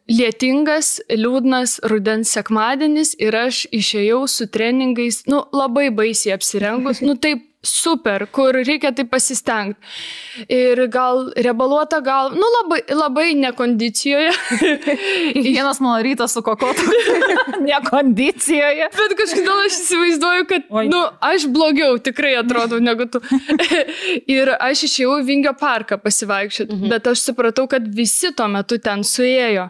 Lietingas, liūdnas rudens sekmadienis ir aš išėjau su treningais, labai baisiai apsirengus, taip super, kur reikia tai pasistengti. Ir gal rebaluota, labai nekondicijoje. Vienas mano rytas su kokotu. Nekondicijoje. Bet kažkodėl aš įsivaizduoju, kad, aš blogiau tikrai atrodau negu tu. Ir aš išėjau į Vingio parką pasivaikščioti, bet aš supratau, kad visi tuo metu ten suėjo.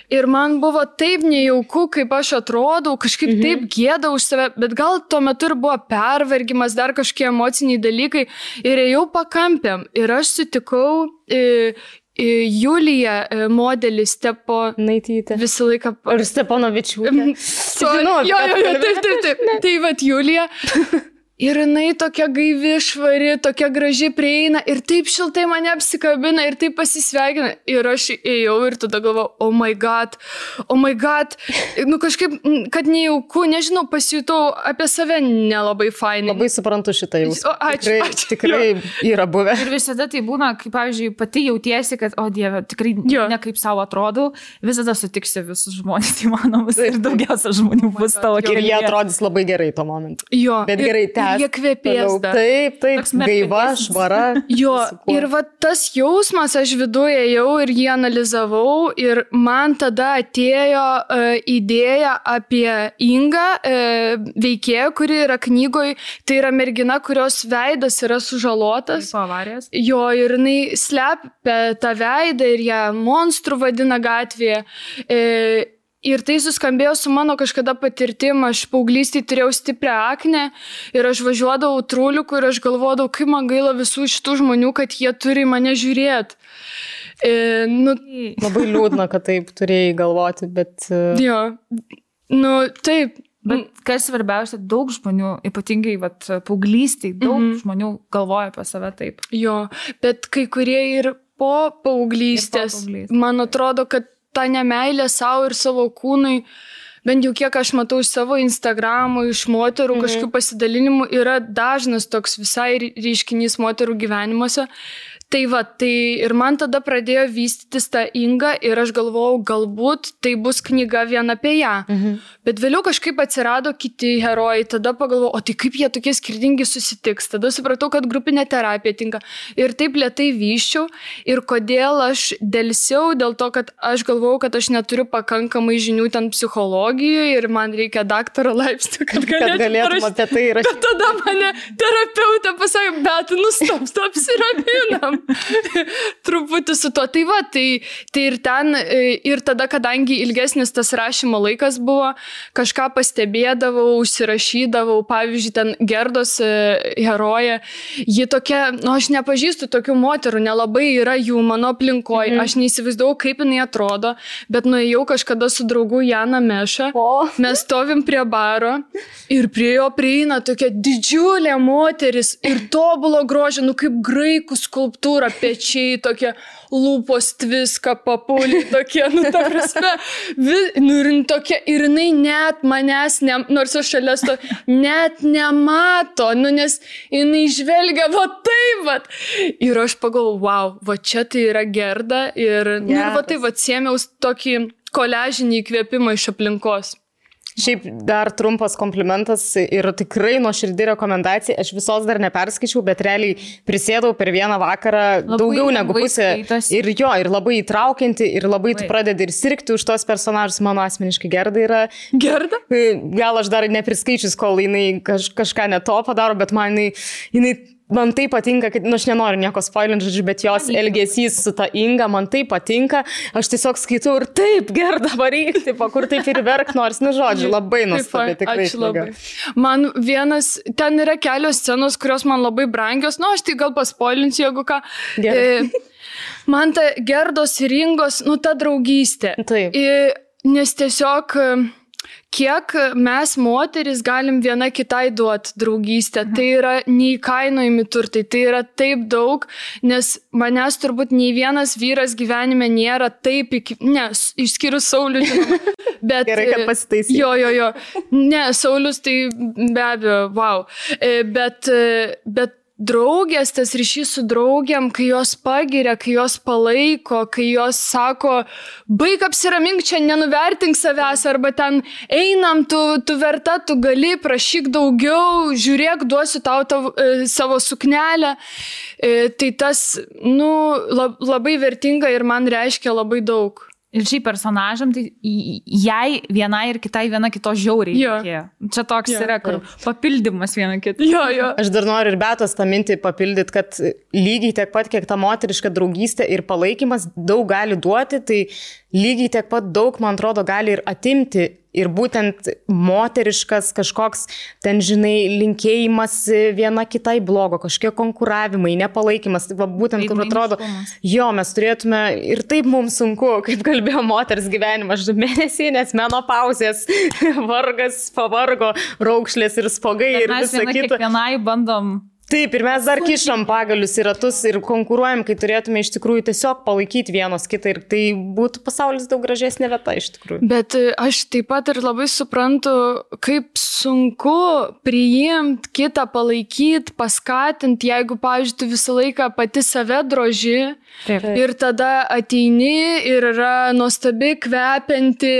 Ir man buvo taip nejauku, kaip aš atrodau, kažkaip taip gėda už save, bet gal tuo metu ir buvo pervargimas, dar kažkokie emociniai dalykai ir ėjau pakampėm. Ir aš sutikau Juliją, modelį Naitytė. Visą laiką... Ir Steponovičiūtė. Taip. Tai vat Julija. Ir jinai tokia gaivi, švari, tokia graži prieina ir taip šiltai mane apsikabina ir taip pasisveikina. Ir aš ėjau ir tada galvojau, oh my god. Kažkaip, kad nejauku, nežinau, pasijutau apie save nelabai fainai. Labai suprantu šitą jausmą. Ačiū. Tikrai yra buvę. Ir visada tai būna, kaip, pavyzdžiui, pati jautiesi, kad, o Dieve, tikrai ne kaip savo atrodau, visada sutiksi visus žmonės įmanomus ir daugiausia žmonių bus tavo kelyje. Ir jie atrodys labai gerai tuo momentu. Jo. Bet gerai, jie kvepės dar. Taip, gaiva, švara. Jo, ir va tas jausmas, aš viduje ėjau ir jį analizavau ir man tada atėjo idėja apie Ingą, veikėją, kuri yra knygoje, tai yra mergina, kurios veidas yra sužalotas. Po avarijos. Jo, ir jinai slepia tą veidą ir ją monstrų vadina gatvėje. Ir tai suskambėjo su mano kažkada patirtim, aš paauglystėje turėjau stiprią aknę ir aš važiuodavau trūliukų ir aš galvodavau, kaip man gaila visų šitų žmonių, kad jie turi mane žiūrėti. Labai liūdna, kad taip turėjai galvoti, bet... Jo, taip. Bet kas svarbiausia, daug žmonių, ypatingai paauglystėje, daug žmonių galvoja apie save taip. Jo, bet kai kurie ir po paauglystės, man atrodo, kad ta nemeilė savo ir savo kūnui bent jau kiek aš matau iš savo Instagramų, iš moterų kažkokių pasidalinimų, yra dažnas toks visai reiškinys moterų gyvenimuose. Tai va, tai ir man tada pradėjo vystytis ta Inga ir aš galvojau, galbūt tai bus knyga vien apie ją. Bet vėliau kažkaip atsirado kiti herojai, tada pagalvojau, o tai kaip jie tokie skirtingi susitiks. Tada supratau, kad grupinė terapija tinka. Ir taip lėtai vyščiau. Ir kodėl aš dėlsiau, dėl to, kad aš galvojau, kad aš neturiu pakankamai žinių ten psichologijoje ir man reikia daktaro laipsnio, kad galėtum apie tai rašyti. Bet tada mane terapeutė pasakė, bet stop, apsiraminam. Truputį su to. Tai va, tai ir ten, ir tada, kadangi ilgesnis tas rašymo laikas buvo, kažką pastebėdavau, užsirašydavau, pavyzdžiui, ten Gerdos herojė, ji tokia, aš nepažįstu tokių moterų, nelabai yra jų mano aplinkoje, aš neįsivaizdavau, kaip jinai atrodo, bet nuėjau kažkada su draugu Jana Meša, mes stovim prie baro ir prie jo prieina tokia didžiulė moteris ir tobulo grožio, kaip graikų skulptūra, pečiai, tokie lūpos tviska, papulį, tokie, ta prasme, ir jinai net manęs, nors aš šalia net nemato, nes jinai žvelgia, va taip, va. Ir aš pagalvojau, wow, va čia tai yra Gerda ir va taip, va sėmiaus tokį koležinį įkvėpimą iš aplinkos. Šiaip dar trumpas komplimentas ir tikrai nuoširdi rekomendacija. Aš visos dar neperskaičiau, bet realiai prisėdau per vieną vakarą daugiau negu pusę. Ir labai įtraukianti, ir labai tu pradedi ir sirgti už tos personažus. Mano asmeniškai Gerda yra. Gerda? Gal aš dar nepriskaičius, kol jinai kažką ne to padaro, bet jinai man tai patinka, kad, aš nenoriu nieko spoilinti, žodžiu, bet jos elgesys su ta Inga man tai patinka. Aš tiesiog skaitau ir taip, Gerda, varyk, kur taip ir verk nors, žodžiu, labai nuostabi, tikrai. Ačiū labai. Man ten yra kelios scenos, kurios man labai brangios, aš tai gal paspoilinsiu, jeigu ką. Man ta Gerdos ir Ingos, ta draugystė. Taip. Nes tiesiog kiek mes moteris galim viena kitai duoti draugystę. Tai yra neįkainojami turtai, tai yra taip daug, nes manęs turbūt nei vienas vyras gyvenime nėra taip išskyrus Saulių, žinoma. Bet, gerai, kad pasitaisyti. Jo. Ne, Saulius tai be abejo, wow. Bet draugės, tas ryšys su draugiam, kai jos pagiria, kai jos palaiko, kai jos sako, baik apsiramink čia, nenuvertink savęs, arba ten einam, tu verta, tu gali, prašyk daugiau, žiūrėk, duosiu tau savo suknelę. Tai tas, labai vertinga ir man reiškia labai daug. Ir šiaip personažam, tai jai vienai ir kitai viena kito žiauriai reikėjo. Čia toks yra, kur papildymas viena kitą. Aš dar noriu ir Betos tą mintį papildyti, kad lygiai tiek pat, kiek ta moteriška draugystė ir palaikymas daug gali duoti, tai lygiai tiek pat daug, man atrodo, gali ir atimti. Ir būtent moteriškas kažkoks, ten, žinai, linkėjimas viena kitai blogo, kažkokie konkuravimai, nepalaikymas. Tai būtent, kur atrodo, mes turėtume ir taip mums sunku, kaip kalbėjo moters gyvenimas, mėnesinės, menopauzės, vargas, pavargo, raukšlės ir spogai ir visa kita. Kiekvienai bandom. Taip, ir mes dar kišam pagalius į ratus ir konkuruojam, kai turėtume iš tikrųjų tiesiog palaikyti vienos kitą ir tai būtų pasaulis daug gražesnė vieta iš tikrųjų. Bet aš taip pat ir labai suprantu, kaip sunku priimti kitą, palaikyti, paskatinti, jeigu, pavyzdžiui, tu visą laiką pati save droži. Taip. Ir tada ateini ir yra nuostabi, kvepianti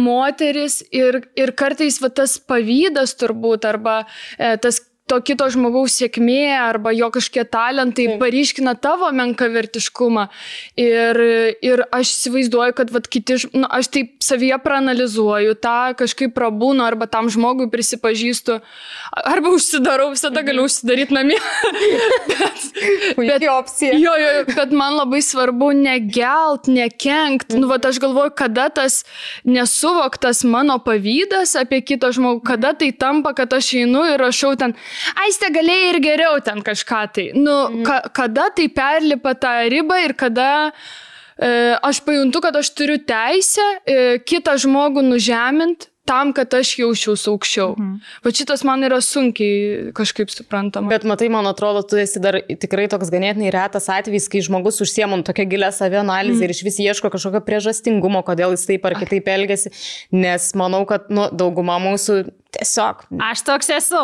moteris ir kartais tas pavydas turbūt arba tas to kito žmogaus sėkmė arba jo kažkokie talentai paryškina tavo menkavertiškumą. Ir aš įsivaizduoju, kad kiti, aš taip savyje praanalizuoju, tą kažkaip prabūnu arba tam žmogui prisipažįstu, arba užsidarau, visada galiu užsidaryti namie. Puikiai opcija. Bet man labai svarbu negelt, nekenkt. Aš galvoju, kada tas nesuvoktas mano pavydas apie kitą žmogų, kada tai tampa, kad aš einu ir rašau ten, Aiste, galėjai ir geriau ten kažką tai. Kada tai perlipa tą ribą ir kada aš pajuntu, kad aš turiu teisę kitą žmogų nužemint, tam, kad aš jausčiausi aukščiau. Va šitas man yra sunkiai kažkaip suprantama. Bet matai, man atrodo, tu esi dar tikrai toks ganėtinai retas atvejis, kai žmogus užsiemam tokią gilę savianalizę ir iš vis ieško kažkokio priežastingumo, kodėl jis taip ar kitaip elgiasi, nes manau, kad dauguma mūsų tiesiog. Aš toks esu.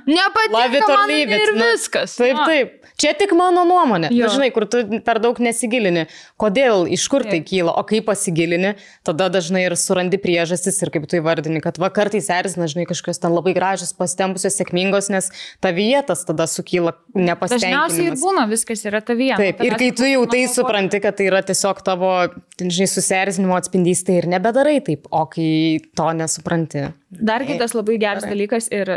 Nepatinka man ir viskas. Taip. Čia tik mano nuomonė. Žinai, kur tu per daug nesigilini. Kodėl, iš kur tai kyla, o kai pasigilini, tada dažnai ir surandi priežastis ir kaip tu įvardini, kad kartais erzina, žinai, kažkas ten labai gražios, pasitempusios, sėkmingos, nes tavyje tas tada sukyla nepasitenkinimas. Dažniausiai ir būna, viskas yra tavyje. Taip, ir kai tu jau tai supranti, kad tai yra tiesiog tavo, žinai, susierzinimo atspindys, tai ir nebedarai taip, o kai to nesupranti. Dar kitas labai geras dalykas ir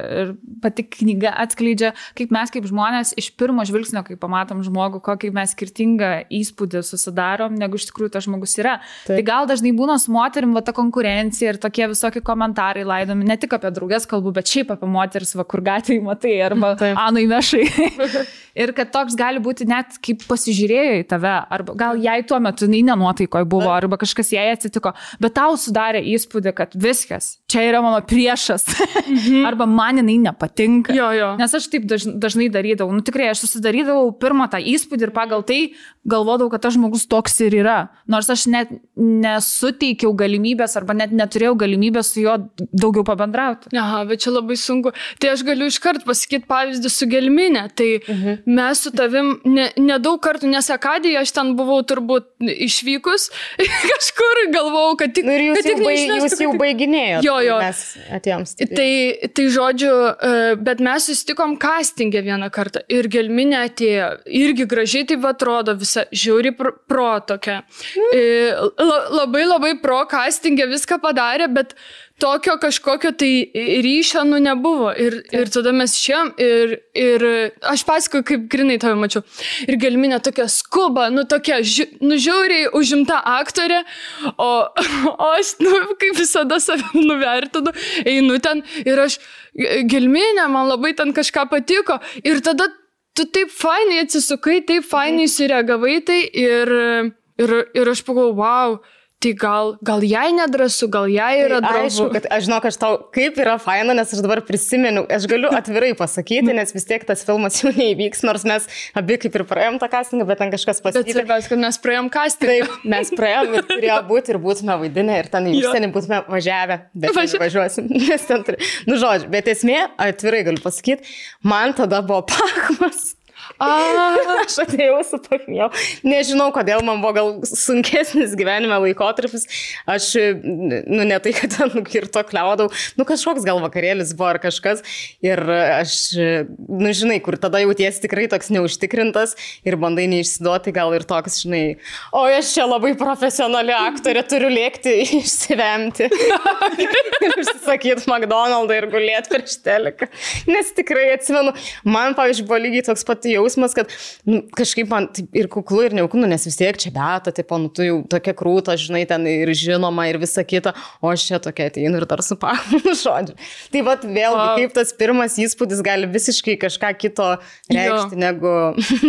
pati knyga atskleidžia, kaip mes kaip žmonės iš pirmo žvilgsnio, kai pamatom žmogų, kokį mes skirtingą įspūdį susidarom, negu iš tikrųjų tas žmogus yra. Taip. Tai gal dažnai būna su moterim ta konkurencija ir tokie visokie komentarai laidomi, ne tik apie drauges kalbų, bet šiaip apie moteris, kur gatvėje matai, arba Anui Mešai. Ir kad toks gali būti net kaip pasižiūrėjo į tave, arba gal jai tuo metu nenuotaikoje buvo, arba kažkas jai atsitiko, bet tau sudarė įspūdį, kad viskas, čia yra mano priešas, arba man jinai nepatinka. Nes aš taip dažnai darydavau. Tikrai, aš susidarydavau pirmą tą įspūdį ir pagal tai galvodavau, kad tas žmogus toks ir yra. Nors aš net nesuteikiau galimybės arba net neturėjau galimybės su juo daugiau pabendrauti. Aha, bet čia labai sunku. Tai aš galiu iškart pasakyti pavyzdį su Gelmine. Tai mes su tavim nedaug kartų, nes Akadijoje aš ten buvau turbūt išvykus kažkur, galvojau, kad tik... Ir jūs jau baiginėjot. Mes atėjom stipriai. Tai žodžiu, bet mes susitikom castingę vieną kartą ir Gelminė atėjo, irgi gražiai taip atrodo, visa žiauri pro tokia. Labai pro castingę viską padarė, bet tokio kažkokio tai ryšio nebuvo. Ir tada mes šiam ir aš pasakoju, kaip grinai tave mačiau. Ir Gelminė tokia skuba, tokia žiauriai užimta aktorė, o aš, kaip visada save nuvertinu, einu ten ir aš, Gelminė, man labai ten kažką patiko. Ir tada tu taip fainai atsisukai, taip fainai sureagavai tai ir aš pagalvojau, wow, tai gal jai nedrasu, gal jai yra drąsu. Aišku, kad aš žinau, kad tau kaip yra faina, nes aš dabar prisimenu, aš galiu atvirai pasakyti, nes vis tiek tas filmas jau neįvyks, nors mes abi kaip ir praėjom tą castingą, bet ten kažkas pasakyti. Bet svarbiausia, kad mes praėjom castingą. Taip, mes praėjom ir turėjo būti ir būtume vaidinę ir ten į užsienį būtume važiavę, bet važiuosim. Žodžiu, bet esmė, atvirai galiu pasakyti, man tada buvo pachmas. Aš atėjau su pachmėjau. Nežinau, kodėl man buvo gal sunkesnis gyvenime laikotarpis. Aš, ne tai, kad ten nukirto kliaudau, kažkoks gal vakarėlis buvo ar kažkas. Ir aš, žinai, kur tada jauties tikrai toks neužtikrintas ir bandai neišsiduoti, gal ir toks, žinai, o aš čia labai profesionali aktorė, turiu lėkti išsivemti. Ir užsisakyti McDonald'ą ir gulėti prieš teliką. Nes tikrai atsimenu, man, pavyzdžiui, buvo lygiai toks pat jausmas, kad kažkaip man ir kuklu, ir neuklu, nes vis tiek čia Beata, tipo, tu jau tokia krūta, žinai, ten ir žinoma, ir visa kita, o aš čia tokia ateinu ir dar su pachmu, žodžiu. Tai vat vėlgi, kaip tas pirmas įspūdis gali visiškai kažką kito reikšti, negu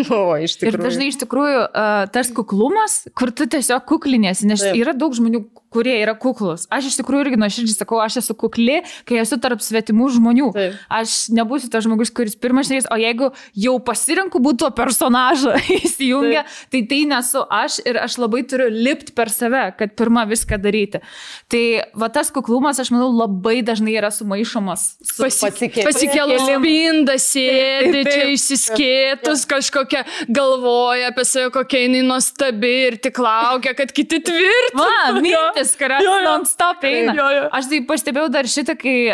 buvo iš tikrųjų. Ir dažnai iš tikrųjų tas kuklumas, kur tu tiesiog kukliniesi, nes yra daug žmonių, kurie yra kuklus. Aš iš tikrųjų irgi nuoširdžiai sakau, aš esu kukli, kai esu tarp svetimų žmonių. Taip. Aš nebūsiu tas žmogus, kuris pirmas šnekės, o jeigu jau pasirenku būti to personažą įsijungia, tai nesu aš ir aš labai turiu lipti per save, kad pirmą viską daryti. Tai va tas kuklumas, aš manau, labai dažnai yra sumaišomas su pasikėlus spinda, sėdi čia išsiskėtus, kažkokia galvoja apie save, kokia jinai nuostabi ir tik laukia, kad kiti tvirtina. Mintis, kurios non-stop eina. Aš tai pastebėjau dar šitą, kai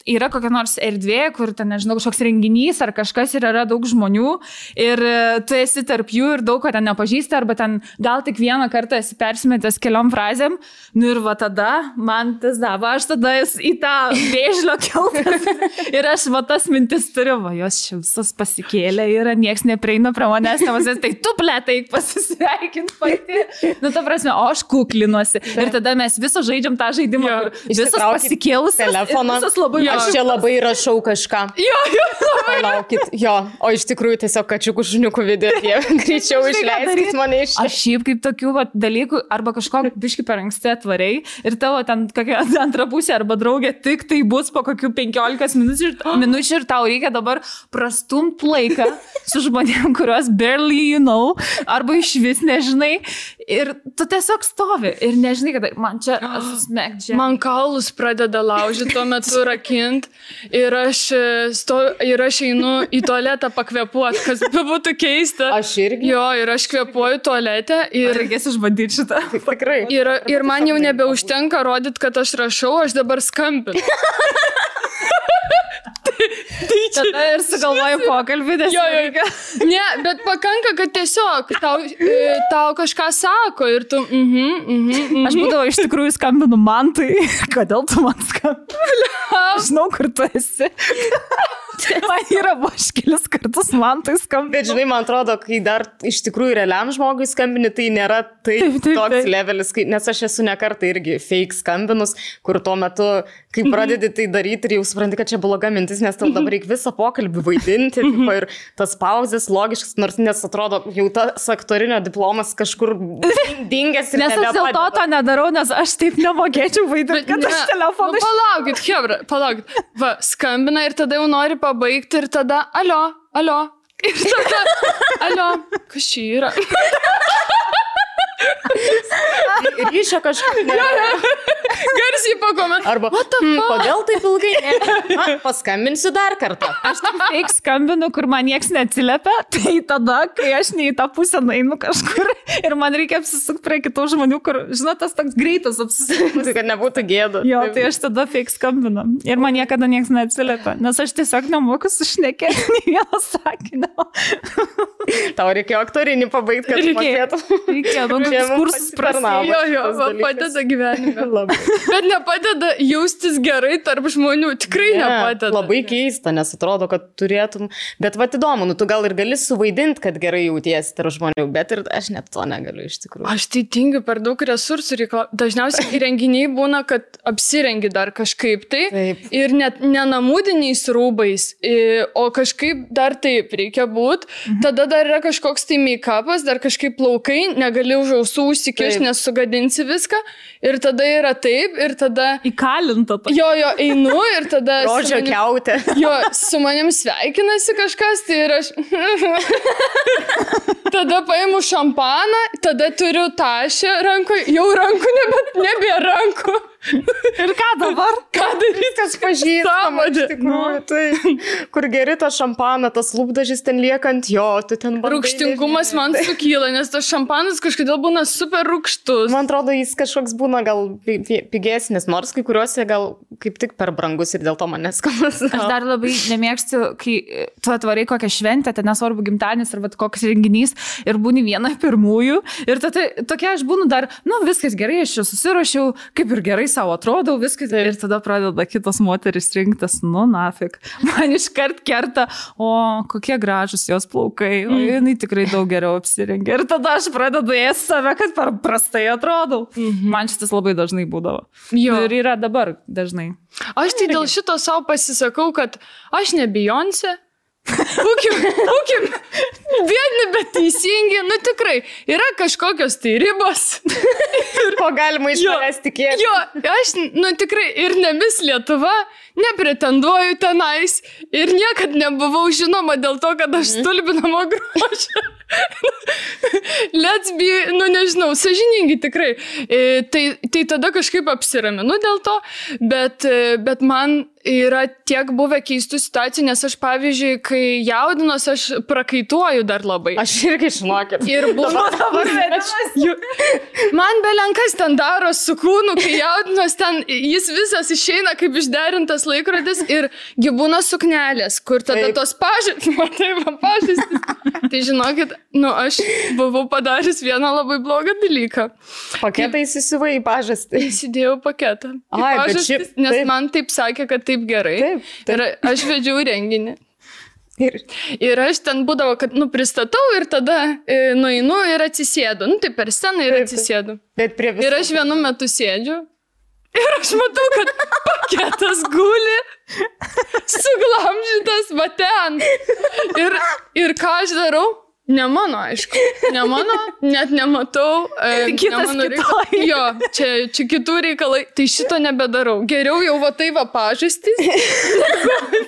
yra kokia nors erdvė, kur ten, nežinau, kažkoks renginys ar kažkas ir yra daug žmonių ir tu esi tarp jų ir daug ko ten nepažįsti, arba ten gal tik vieną kartą esi persimetęs keliom frazėm, ir va tada man tas dava, aš tada į tą vėžlio keltas ir aš va tas mintis turiu, va jos visos pasikėlė ir nieks neprieina prie manęs, tai tu plėtai pasisveikint pati. Ta prasme, o aš kuklinuosi. Ir tada mes visą žaidžiam tą žaidimą, visas pasikėlus telefoną. Aš čia labai rašau kažką. Palaukit, o iš tikrųjų tiesiog kačiukų šuniukų video, jie greičiau išleiskit mane iš. Aš šiaip kaip tokių dalykų, arba kažkokį biškį per anksti atvariai ir tavo ten kokia antra pusė arba draugė tik tai bus po kokių 15 minučių ir tau reikia dabar prastumt laiką su žmonėm, kuriuos barely you know, arba iš vis nežinai. Ir tu tiesiog stovi ir nežinai, kad man čia smekdžia. Man kaulus pradeda laužyti tuo metu rakint ir aš einu į tualetą pakvėpuoti, kas būtų keista. Aš irgi. Jo, ir aš kvėpuoju tualete ir... Reikės išbandyti šitą. Tikrai. Ir man jau nebeužtenka rodyti, kad aš rašau, aš dabar skambinu. Tada ir sugalvoju pokalbį, nes Ne, bet pakanka, kad tiesiog tau kažką sako ir tu... Aš būdavo iš tikrųjų skambinu Mantui. Kodėl tu man skambinu? Aš žinau, kur tu esi. Man yra kelis kartus Mantui skambinu. Bet žinai, man atrodo, kai dar iš tikrųjų realiam žmogui skambini, tai nėra toks levelis, nes aš esu ne kartą irgi fake skambinus, kur tuo metu, kai pradedi tai daryti ir jau supranti, kad čia bloga mintis, nes tau dabar reikia visą pokalbį vaidinti ir tas pauzės logiškas, nors nes atrodo, jau tas aktorinio diplomas kažkur dingęs ir nes aš dėl to nedarau, nes aš taip nemokėčiau vaidinti, kad aš telefoną... Nu, palaukit, Hebra, palaukit. Va, skambina ir tada jau nori pabaigti ir tada, alio. Ir tada, alio, kas čia yra? Ryšio kažkaip. Garsiai pakomentuoju. Arba, kodėl taip ilgai? Paskambinsiu dar kartą. Aš taip fake skambinu, kur man nieks neatsiliepia, tai tada, kai aš ne į tą pusę nueinu kažkur ir man reikia apsisukti prie kitų žmonių, kur, žinot, tas toks greitas apsisukimas. Kad nebūtų gėda. Jo, tai aš tada fake skambinu. Ir man niekada nieks neatsiliepia, nes aš tiesiog nemoku sušnekėti nei vieno sakinio. Tau reikėjo aktorinį pabaigti, kad mokėtum. Reikėjo, kursus prasidėjo. Jo, padeda gyvenime. Bet nepadeda jaustis gerai tarp žmonių. Tikrai nepadeda. Labai keista, nes atrodo, kad turėtum. Bet va įdomu, tu gal ir gali suvaidinti, kad gerai jautiesi tarp žmonių, bet ir aš net to negaliu iš tikrųjų. Aš tai tingiu per daug resursų reikalauti. Dažniausiai renginiai būna, kad apsirengi dar kažkaip tai. Taip. Ir net nenamudiniais rūbais, o kažkaip dar taip reikia būti. Tada dar yra kažkoks tai make-upas, dar kažkaip plaukai, negali už ausų užsikišti, nes sugadinsi viską. Ir tada yra taip, ir tada... Įkalinta. Jo, einu ir tada... Rodžio kiautė. Jo, su manim sveikinasi kažkas, tai ir aš... Tada paimu šampaną, tada turiu tašę rankoje, jau rankų nebėra rankų. Ir ką dabar? Ką daryti? Kas pažįstama, iš tikrųjų. Tai, kur geri tą šampaną, tas lūpdažis ten liekant, jo, tu ten bandai. Rūgštingumas man sukyla, nes tas šampanas kažkodėl būna super rūgštus. Man atrodo, jis kažkoks būna gal pigesnis, nors kai kuriuose gal kaip tik per brangus ir dėl to man neskanas. Aš dar labai nemėgstu, kai tu atvarai kokią šventę, ten nesvarbu gimtadienis arba koks renginys ir būni viena pirmųjų ir tokia aš būnu dar, viskas gerai, aš čia susiruošiau, kaip ir gerai savo atrodau, viskas ir tada pradeda kitos moteris rinktis, nafik. Man iškart kerta, kokie gražus jos plaukai, o jinai tikrai daug geriau apsirengia. Ir tada aš pradedu ėsti save, kad per prastai atrodau. Man šitas labai dažnai būdavo. Jo. Ir yra dabar dažnai. Aš tai dėl šito savo pasisakau, kad aš ne Beyoncé. Būkim vieni, bet teisingi, tikrai, yra kažkokios tai ribos. Ko galima iš manęs tikėti. Jo, aš, tikrai, ir ne Miss Lietuva, nepretenduoju tenais ir niekad nebuvau žinoma dėl to, kad aš stulbinamo grožio. Let's be, nežinau, sąžiningi tikrai. Tai tada kažkaip apsiraminu dėl to, bet man yra tiek buvę keistų situacijų, nes aš, pavyzdžiui, kai jaudinos, aš prakaituoju dar labai. Aš irgi žinokit. Ir buvo man belenkas ten daro su kūnu, kai jaudinos ten, jis visas išeina kaip išderintas laikrodis ir gyvūna suknelės, kur tada tos pažastys. Tai žinokit, aš buvau padaręs vieną labai blogą dalyką. Paketą įsisivai į pažastį. Įsidėjau paketą. Nes man taip sakė, kad taip gerai. Taip. Ir aš vedžiau renginį. Ir aš ten būdavo, kad, pristatau ir tada nueinu ir atsisėdu. Tai per sceną ir atsisėdu. Ir aš vienu metu sėdžiu ir aš matau, kad paketas guli, suglamžytas va ten. Ir ką aš darau? Ne mano, aišku. Ne mano, net nematau. Kitas kitoj. Jo, čia kitų reikalai. Tai šito nebedarau. Geriau jau va tai va pažastys.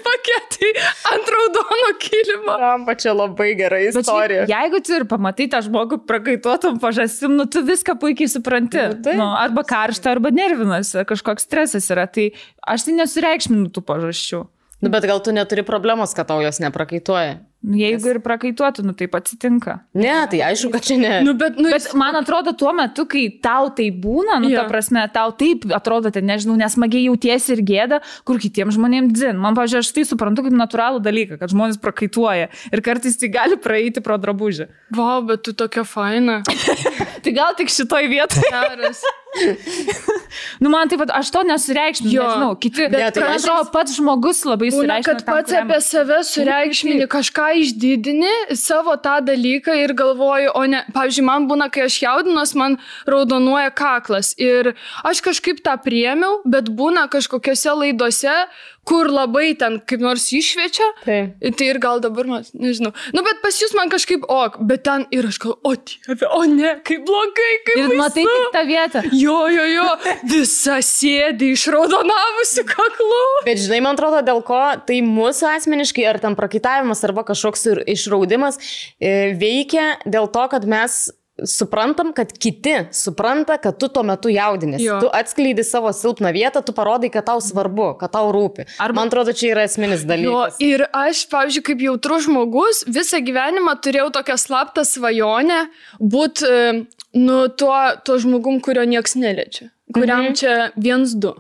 Paketai ant raudono kilimo. Ramba, čia labai gera istorija. Jeigu tu ir pamatai tą žmogų prakaituotum pažastim, tu viską puikiai supranti. Arba karšta, arba nervinas, kažkoks stresas yra. Tai aš tai nesureikšminu tų pažasčių. Bet gal tu neturi problemos, kad tau jos neprakaituoja? Jeigu ir prakaituotų, taip atsitinka. Ne, tai aišku, kad čia ne. Bet man atrodo, tuo metu, kai tau tai būna, ta prasme, tau taip atrodo, nežinau, nesmagiai jautiesi ir gėda, kur kitiems žmonėms dzin. Man, pavyzdžiui, aš tai suprantu kaip natūralų dalyką, kad žmonės prakaituoja ir kartais tai gali praeiti pro drabužį. Vau, bet tu tokia faina. Tai gal tik šitoj vietoje. Geras. Man taip pat, aš to nesureikšminu, nežinau, kiti, bet man atrodo, pats žmogus labai sureikšmina. Kad pats apie save sureikšmini, kažką išdidini, savo tą dalyką ir galvoju, o ne, pavyzdžiui, man būna, kai aš jaudinuos, man raudonuoja kaklas ir aš kažkaip tą priėmiau, bet būna kažkokiose laidose, kur labai ten kaip nors iššviečia, tai ir gal dabar man, nežinau. Bet pas jūs man kažkaip bet ten ir aš galvoju, o Dieve, o ne, kaip blogai, kaip baisu. Ir matai tik tą vietą. Jo, visa sėdi išraudonavusi kaklu. Bet žinai, man atrodo, dėl ko tai mūsų asmeniškai, ar ten prakaitavimas, arba kažkoks išraudimas veikia dėl to, kad mes suprantam, kad kiti supranta, kad tu tuo metu jaudinės. Tu atskleidi savo silpną vietą, tu parodai, kad tau svarbu, kad tau rūpi. Man atrodo, čia yra esminis dalykas. Ir aš, pavyzdžiui, kaip jautrus žmogus, visą gyvenimą turėjau tokią slaptą svajonę būti tuo žmogum, kurio nieks neliečia. Kuriam čia 1-2.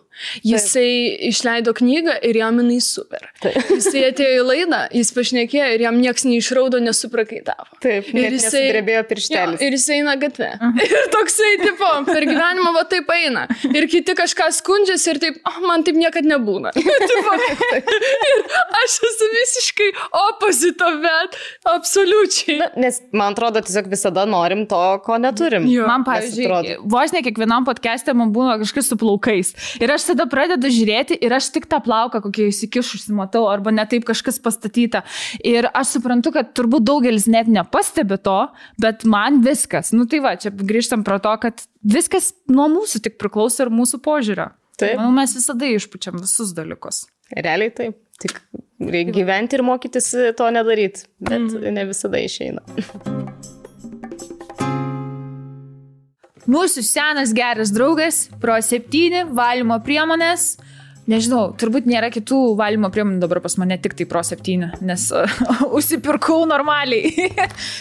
Jisai išleido knygą ir jam jinai super. Jisai atėjo į laidą, jis pašnekėjo ir jam nieks neišraudo, nesuprakaitavo. Taip, ir jisai drebėjo pirštelis. Ir jisai eina gatve. Ir toksai, tipo, per gyvenimą va taip eina. Ir kiti kažką skundžiasi ir taip, man taip niekad nebūna. Ir aš esu visiškai opposite, bet absoliučiai. Nes man atrodo, tiesiog visada norim to, ko neturim. Man, pavyzdžiui, vos ne kiekvienam podcast'e man būna kažkas su plaukais. Ir aš tada pradedu žiūrėti ir aš tik tą plauką kokie įsikišusi matau, arba ne taip kažkas pastatyta. Ir aš suprantu, kad turbūt daugelis net nepastebi to, bet man viskas. Tai va, čia grįžtam prie to, kad viskas nuo mūsų tik priklauso ir mūsų požiūrio. Taip. Manau, mes visada išpučiam visus dalykus. Realiai taip. Tik reikia gyventi ir mokytis to nedaryti, bet ne visada išeina. Mūsų senas geras draugas, Pro 7 valymo priemonės. Nežinau, turbūt nėra kitų valymo priemonių dabar pas mane, tik tai Pro 7, nes užsipirkau normaliai.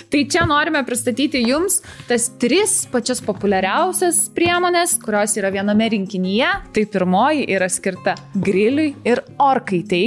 Tai čia norime pristatyti jums tas 3 pačias populiariausias priemonės, kurios yra viename rinkinyje. Tai pirmoji yra skirta griliui ir orkaitai.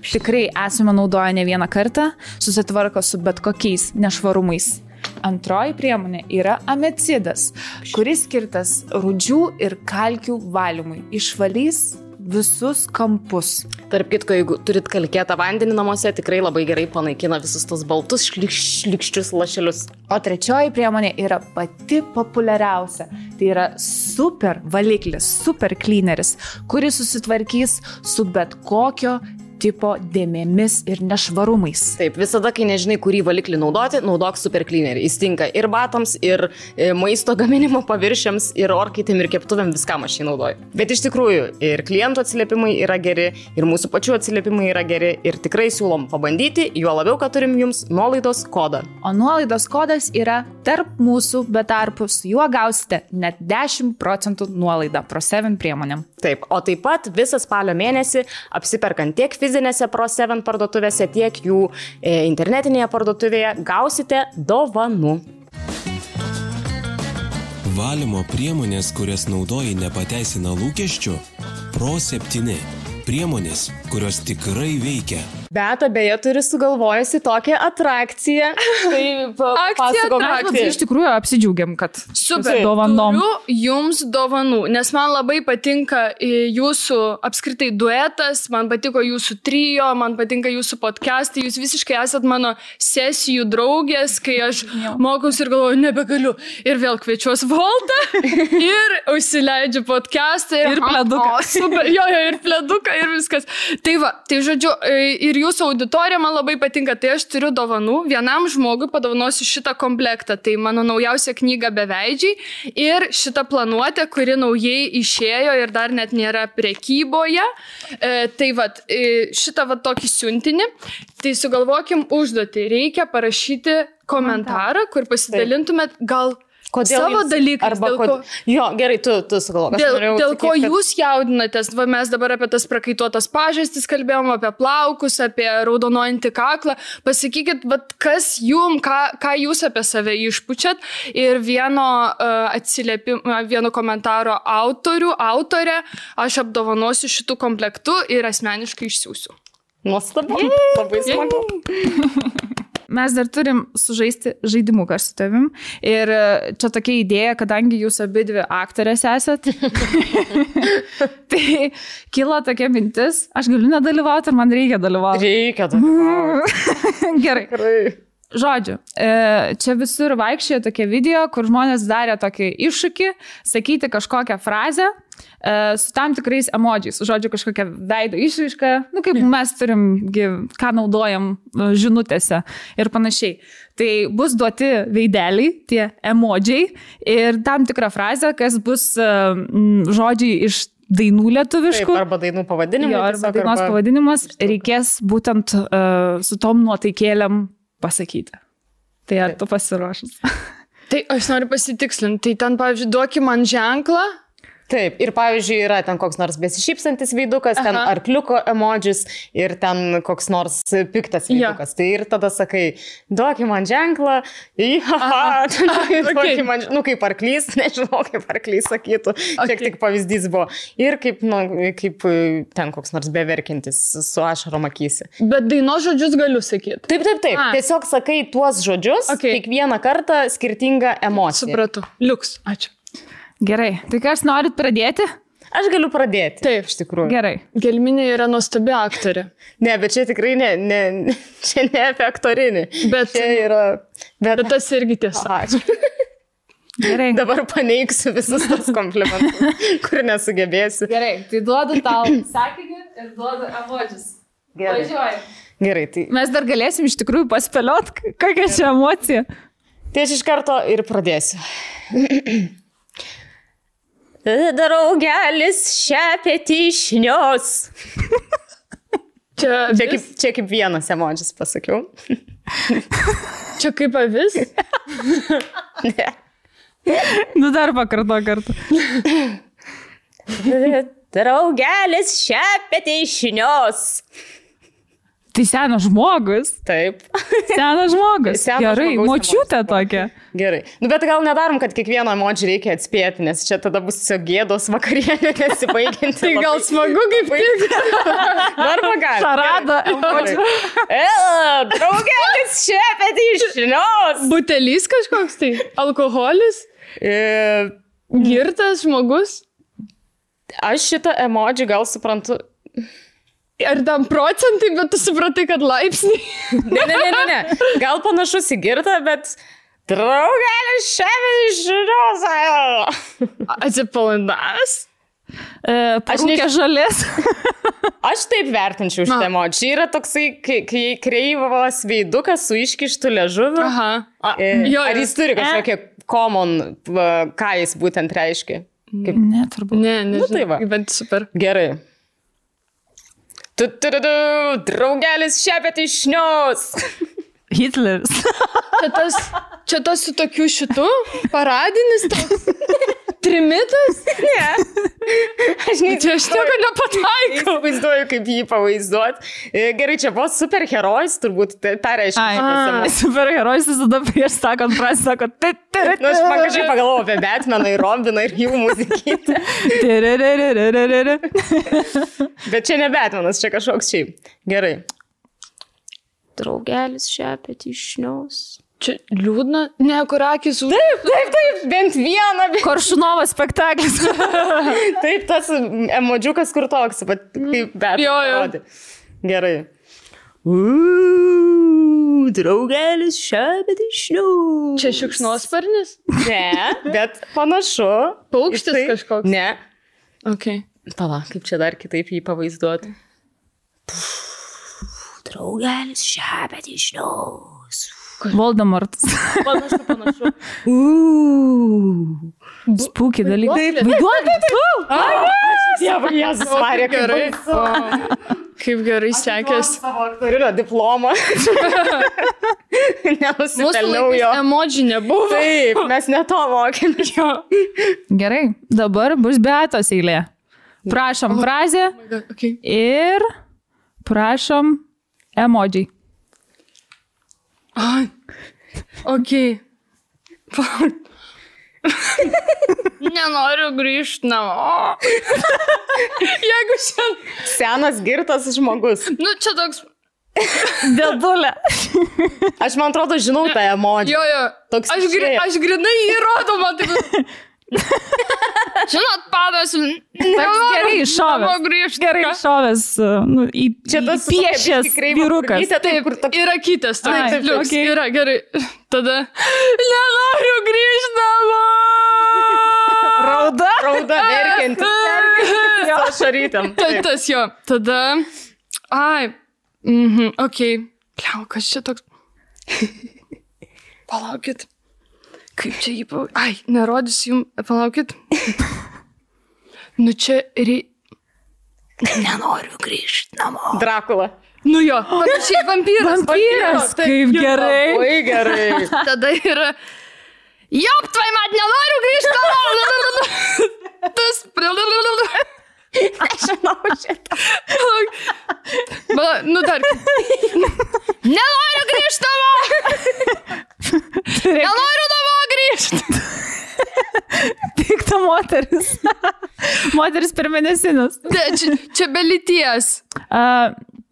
Tikrai esame naudoję ne vieną kartą, susitvarko su bet kokiais nešvarumais. Antroji priemonė yra amecidas, kuris skirtas rūdžių ir kalkių valymui. Išvalys visus kampus. Tarp kitko, jeigu turit kalkėtą vandenį namuose, tikrai labai gerai panaikina visus tos baltus šlikščius lašelius. O trečioji priemonė yra pati populiariausia. Tai yra super valiklis, super cleaneris, kuris susitvarkys su bet kokio tipo dėmėmis ir nešvarumais. Taip, visada, kai nežinai, kurį valiklį naudoti, naudok super cleanerį. Jis tinka ir batams, ir maisto gaminimo paviršiams, ir orkaitėm, ir keptuvėm, viskam aš jį naudoju. Bet iš tikrųjų, ir klientų atsiliepimai yra geri, ir mūsų pačių atsiliepimai yra geri, ir tikrai siūlom pabandyti, juo labiau, kad turim jums nuolaidos kodą. O nuolaidos kodas yra tarp mūsų be tarpus. Juo gausite net 10% nuolaidą Pro 7 priemonėm. Taip, o taip pat visą spalio mėnesį apsiperkant tiek fizinėse Pro 7 parduotuvėse, tiek jų internetinėje parduotuvėje gausite dovanų. Valymo priemonės, kurias naudoji, nepateisina lūkesčių? Pro 7. Priemonės, kurios tikrai veikia. Bet beje turi sugalvojusi tokią atrakciją. Tai pasakok, iš tikrųjų apsidžiaugiam, kad super dovanom. Turiu jums dovanų, nes man labai patinka jūsų apskritai duetas, man patiko jūsų trio, man patinka jūsų podcastai, jūs visiškai esat mano sesijų draugės, kai aš mokaus ir galvoju, nebegaliu. Ir vėl kviečiuos Voltą ir užsileidžiu podcastą. Ir pleduką. Super, jo, ir pleduką, ir viskas. Tai va, tai žodžiu, ir jūsų auditorija man labai patinka. Tai aš turiu dovanų. Vienam žmogui padovanosiu šitą komplektą. Tai mano naujausia knyga Beveidžiai ir šitą planuotę, kuri naujai išėjo ir dar net nėra prekyboje. Tai va, šitą va tokį siuntinį. Tai sugalvokim užduotį. Reikia parašyti komentarą, kur pasidalintumėt gal savo dalykais. Jo, gerai, tu sugalvok. Dėl ko jūs jaudinatės? Va, mes dabar apie tas prakaituotas pažastis kalbėjom, apie plaukus, apie raudonojantį kaklą. Pasakykit, kas jum, ką jūs apie save išpučiat. Ir vieno komentaro autorę aš apdovanosiu šitų komplektų ir asmeniškai išsiųsiu. Nuostabu, labai smagu. Mes dar turim sužaisti žaidimuką su tavim. Ir čia tokia idėja, kadangi jūs abidvi aktorės esat. Tai kilo tokia mintis, aš galiu nedalyvauti, ar man reikia dalyvauti? Reikia dalyvauti. Gerai. Žodžiu, čia visur vaikščiojo tokie video, kur žmonės darė tokį iššūkį, sakyti kažkokią frazę su tam tikrais emodžiais. Žodžiu, kažkokią veido išraišką, kaip mes turim, ką naudojam žinutėse ir panašiai. Tai bus duoti veideliai, tie emodžiai ir tam tikrą frazę, kas bus žodžiai iš dainų lietuviškų. Taip, arba dainų pavadinimas. Jo, arba dainos pavadinimas reikės būtent su tom nuotaikėlėm pasakyti. Tai ar tu pasiruošęs? Tai aš noriu pasitikslinti. Tai ten, pavyzdžiui, duoki man ženklą. Taip, ir pavyzdžiui, yra ten koks nors besišypsantis veidukas, ten arkliuko emodžis ir ten koks nors piktas veidukas. Tai ir tada sakai, duoki man ženklą, duoki man, kaip arklys, nežinau, kaip arklys sakytų, šiek tik pavyzdys buvo. Ir kaip ten koks nors beverkintis su ašarom akyse. Bet dainos žodžius galiu sakyti. Taip. Tiesiog sakai tuos žodžius, kiekvieną kartą skirtingą emociją. Supratau. Liuks, ačiū. Gerai, tai kas norit pradėti? Aš galiu pradėti. Taip, iš tikrųjų. Gerai. Gelminė yra nuostabi aktorė. Ne, bet čia tikrai čia ne apie aktorinį. Bet čia yra... Bet tas irgi tiesa. Ačiū. Gerai. Dabar paneigsiu visus tos komplimentus, kur nesugebėsiu. Gerai, tai duodu tau sakinį ir duodu emodžius. Gerai. Važiuoju. Gerai, tai... Mes dar galėsim iš tikrųjų paspėliot, kokia čia emocija. Tai aš iš karto ir pradėsiu. Draugelis šepėti išnios. Čia kaip vienas emodžis pasakiau. Čia kaip avis? Ne. Nu dar pakarto kartą. Draugelis šepėti išnios. Tai senas žmogus. Taip. Senas žmogus. Gerai, močiutė tokia. Gerai. Bet gal nedarom, kad kiekvieno emodžį reikia atspėti, nes čia tada bus tiesiog gėdos vakarienė nesibaigianti. Tai gal smagu kaip tik. Darba gali. Šarada emodžių. Draugelis šepėti išnios. Butelys kažkoks tai? Alkoholis? Girtas žmogus? Aš šitą emodžį gal suprantu... Ar tam procentai, bet tu supratai, kad laipsniai? Ne. Gal panašus į girtą, bet draugelis šepėti išnios. Atsipalaidavęs? Parūkė žalės. Aš taip vertinčiau šitą emodžį. Čia yra toksai kreivas veidukas su iškištu liežuviu. Aha. Ar jis turi kažkokią common, ką jis būtent reiškia? Ne, turbūt. Ne, nu, tai va. Bet super. Gerai. Draugelis šepėti išnios. Hitleris. Čia tas su tokiu šitu? Paradinis toks? Trimitas? Ne. Aš nieko nepataikau. Vaizduoju, kaip jį pavaizduot. Gerai, čia buvo superherojus, turbūt tą reiškia. Superherojus visada prieš sakant prasį, sakot. Nu, aš man kažkaip pagalvojau apie Batmaną ir Robiną ir jų muzikytę. Bet čia ne Batmanas, čia kažkoks šiaip. Gerai. Draugelis šepetį išniaus. Čia liūdna, ne, kur akis. Taip, bent vieną. Koršunovo spektaklis. Taip, tas emodžiukas kur toks, bet kaip bet. Jo. Gerai. Draugelis šepetį išniaus. Čia šikšnosparnis? Ne, bet panašu. Paukštis kažkoks? Ne. Okay. Pala, kaip čia dar kitaip jį pavaizduoti. Draugelis šepetį išniaus. Voldemortas. Panašu. Spūky dalykai. Dievas, Jėzus Marija, gerai. Kaip gerai sekės. Savo aktorinio diplomą. Nenusipelniau jo. Emodžių nebuvo. Taip, mes ne to mokėmės. Gerai, dabar bus Beatos eilė. Prašom frazę ir prašom emodžiai. Okay. Nenoriu grįžti namo. Jeigu šiandien... Senas girtas žmogus. Nu, čia toks... Dėdulė. Aš man atrodo žinau tą emodžią. Jo. Toks aš grinai įrodau, man taip... Žinot, padas... Gerai iššovęs. Gerai iššovęs. Čia tas piešęs vyrukas. Taip, yra kitas. Taip, yra, gerai. Tada... Nenoriu grįžti namo. Rauda verkianti. Ašarytėm. Tas jo. Tada... Okei. Pliau, kas čia toks... Palaukit. Kaip čia jį nerodysiu jums, palaukit. Nu čia nenoriu grįžti namo. Drakula. Nu jo, panašiai vampyras. Vampyras, kaip gerai. Labai gerai. Tada yra, jop, tvai mat, nenoriu grįžti namo. Tas... Aš žinau šitą. Nu dar. Nenoriu grįžti namo. Nenoriu namo grįžti. Pikta moteris. Moteris per mėnesinus. Čia be lyties.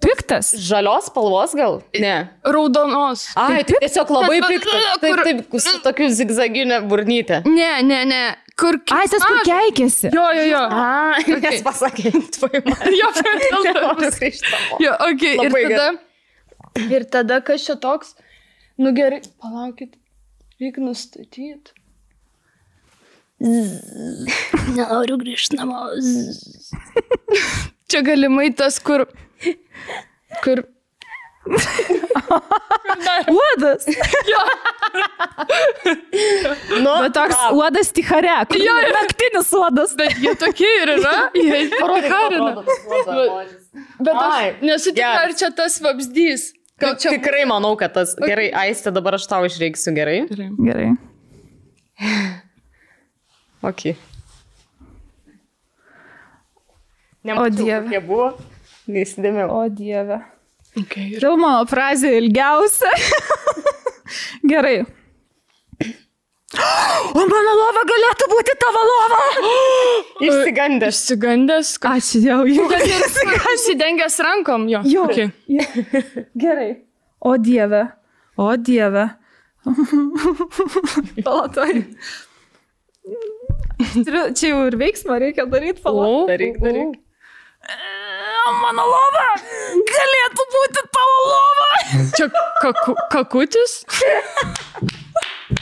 Piktas. Žalios spalvos gal? Ne. Raudonos. Tiesiog labai piktas. Taip, su tokiu zigzaginė burnytė. Ne. Kur... Tas kur keikėsi. Jo. Nes pasakė, tvai man. Jo, ir tada, kas čia toks? Nu gerai, palaukit. Reikia nustatyti. Nenoriu grįžti namo. Čia galimai tas, kur... Uodas. Jo. Bet toks uodas tichare. Naktinis uodas. Bet jie tokie ir yra. Jie ticharina. Bet aš nesu tikra, ar čia tas vabzdys. Tikrai manau, kad tas... Gerai, Aiste, dabar aš tau išreiksiu, gerai? Gerai. Ok. O Dieve. Kokie buvo? Neįsidėmiau. O Dieve. Filmo frazė ilgiausia. Gerai. O mano lova galėtų būti tavo lova. Išsigandęs. Ačiū Dievui. Įsidengęs rankom, jo. Okay. Gerai. O Dieve. Palatoj. Čia jau ir veiksmą reikia daryti. Daryk. Mano lova galėtų būti tavo lova. Čia kakutis?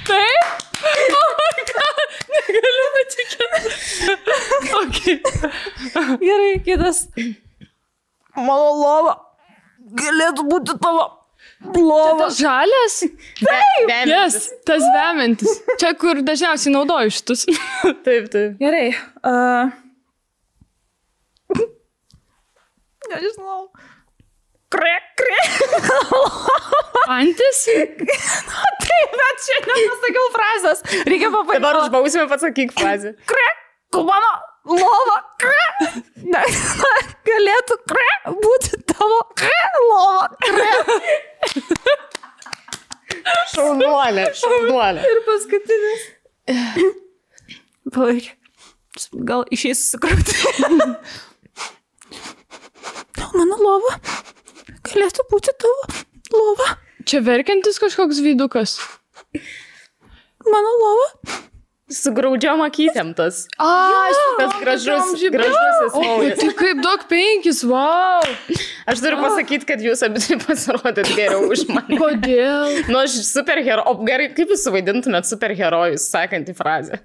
Taip? Oh my God, negaliu patikėti. Okay. Gerai, kitas. Mano lova galėtų būti tavo lova. Tas žalias? Taip. Yes, tas vemiantis. Čia, kur dažniausiai naudoju šitus. Taip. Gerai. Nežinau. Krek. Antis? Taip, bet čia nepasakiau frazės. Reikia papaikoti. Dabar už bausmę pasakyk frazę. Krek, mano lova. Krek. Galėtų krek būti tavo lova. Šaunuolė. Ir paskutinis. Palaik. Gal išeis susikrauti. Mano lova galėtų būti tavo Lova. Čia verkiantis kažkoks veidukas. Mano lova. Su graudžiom akytėm tas. Tas gražusis O, naujas. tai kaip duok 5, wow. Aš turiu pasakyti, kad jūs abi pasirodėt geriau už mane. Kodėl? Nu, aš superherojus. O gerai, kaip jūs suvaidintumėt superherojus, sakantį frazę?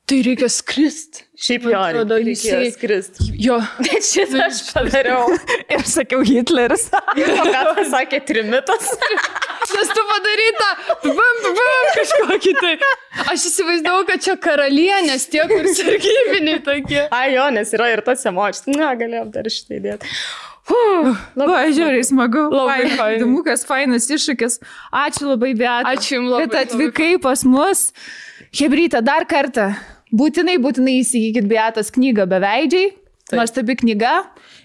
Tai reikia skrist. Šiaip jo, reikėjo skrist. Jo. Bet šitą aš padariau. Ir sakiau Hitleris. O ką pasakė Trimitas? Nes tu padaryta, kažkokį tai. Aš įsivaizdavau, kad čia karalienės, tie, kur sargybiniai tokie. Ai jo, nes yra ir tas emocijos. Na, galėjom dar šitą įdėti. Labai žiauriai smagu. Labai faina. Įdomukas, fainas iššūkis. Ačiū labai, Beata. Ačiū jums labai. Kad atvykai pas mus. Hebryte, dar kartą. Būtinai įsigykit Beatos knygą Beveidžiai. Nuostabi knyga.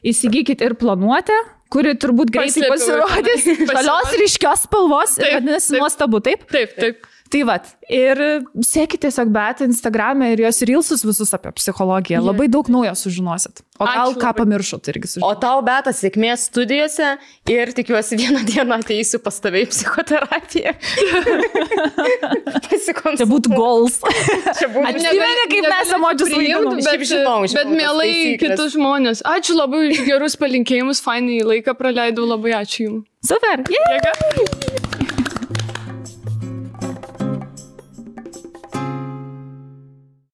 Įsigykit ir Planuotę, kuri turbūt greitai pasirodys. Žalios ryškios spalvos. Vadinasi, nuostabu, taip? Taip. Tai vat, ir sekite tiesiog Beatą Instagram'e ir jos reelsus visus apie psichologiją. Labai daug naujo sužinosit. O gal ką pamiršot irgi sužinosit. O tau, Beata, sėkmės studijose ir tikiuosi vieną dieną ateisiu pas tave į psichoterapiją. Čia būtų goals. Atsimeni, kaip mes emodžius vaidinom. Bet mielai kitus žmonės. Ačiū labai už gerus palinkėjimus, fainai laiką praleidau, labai ačiū jums. Super. Jėga.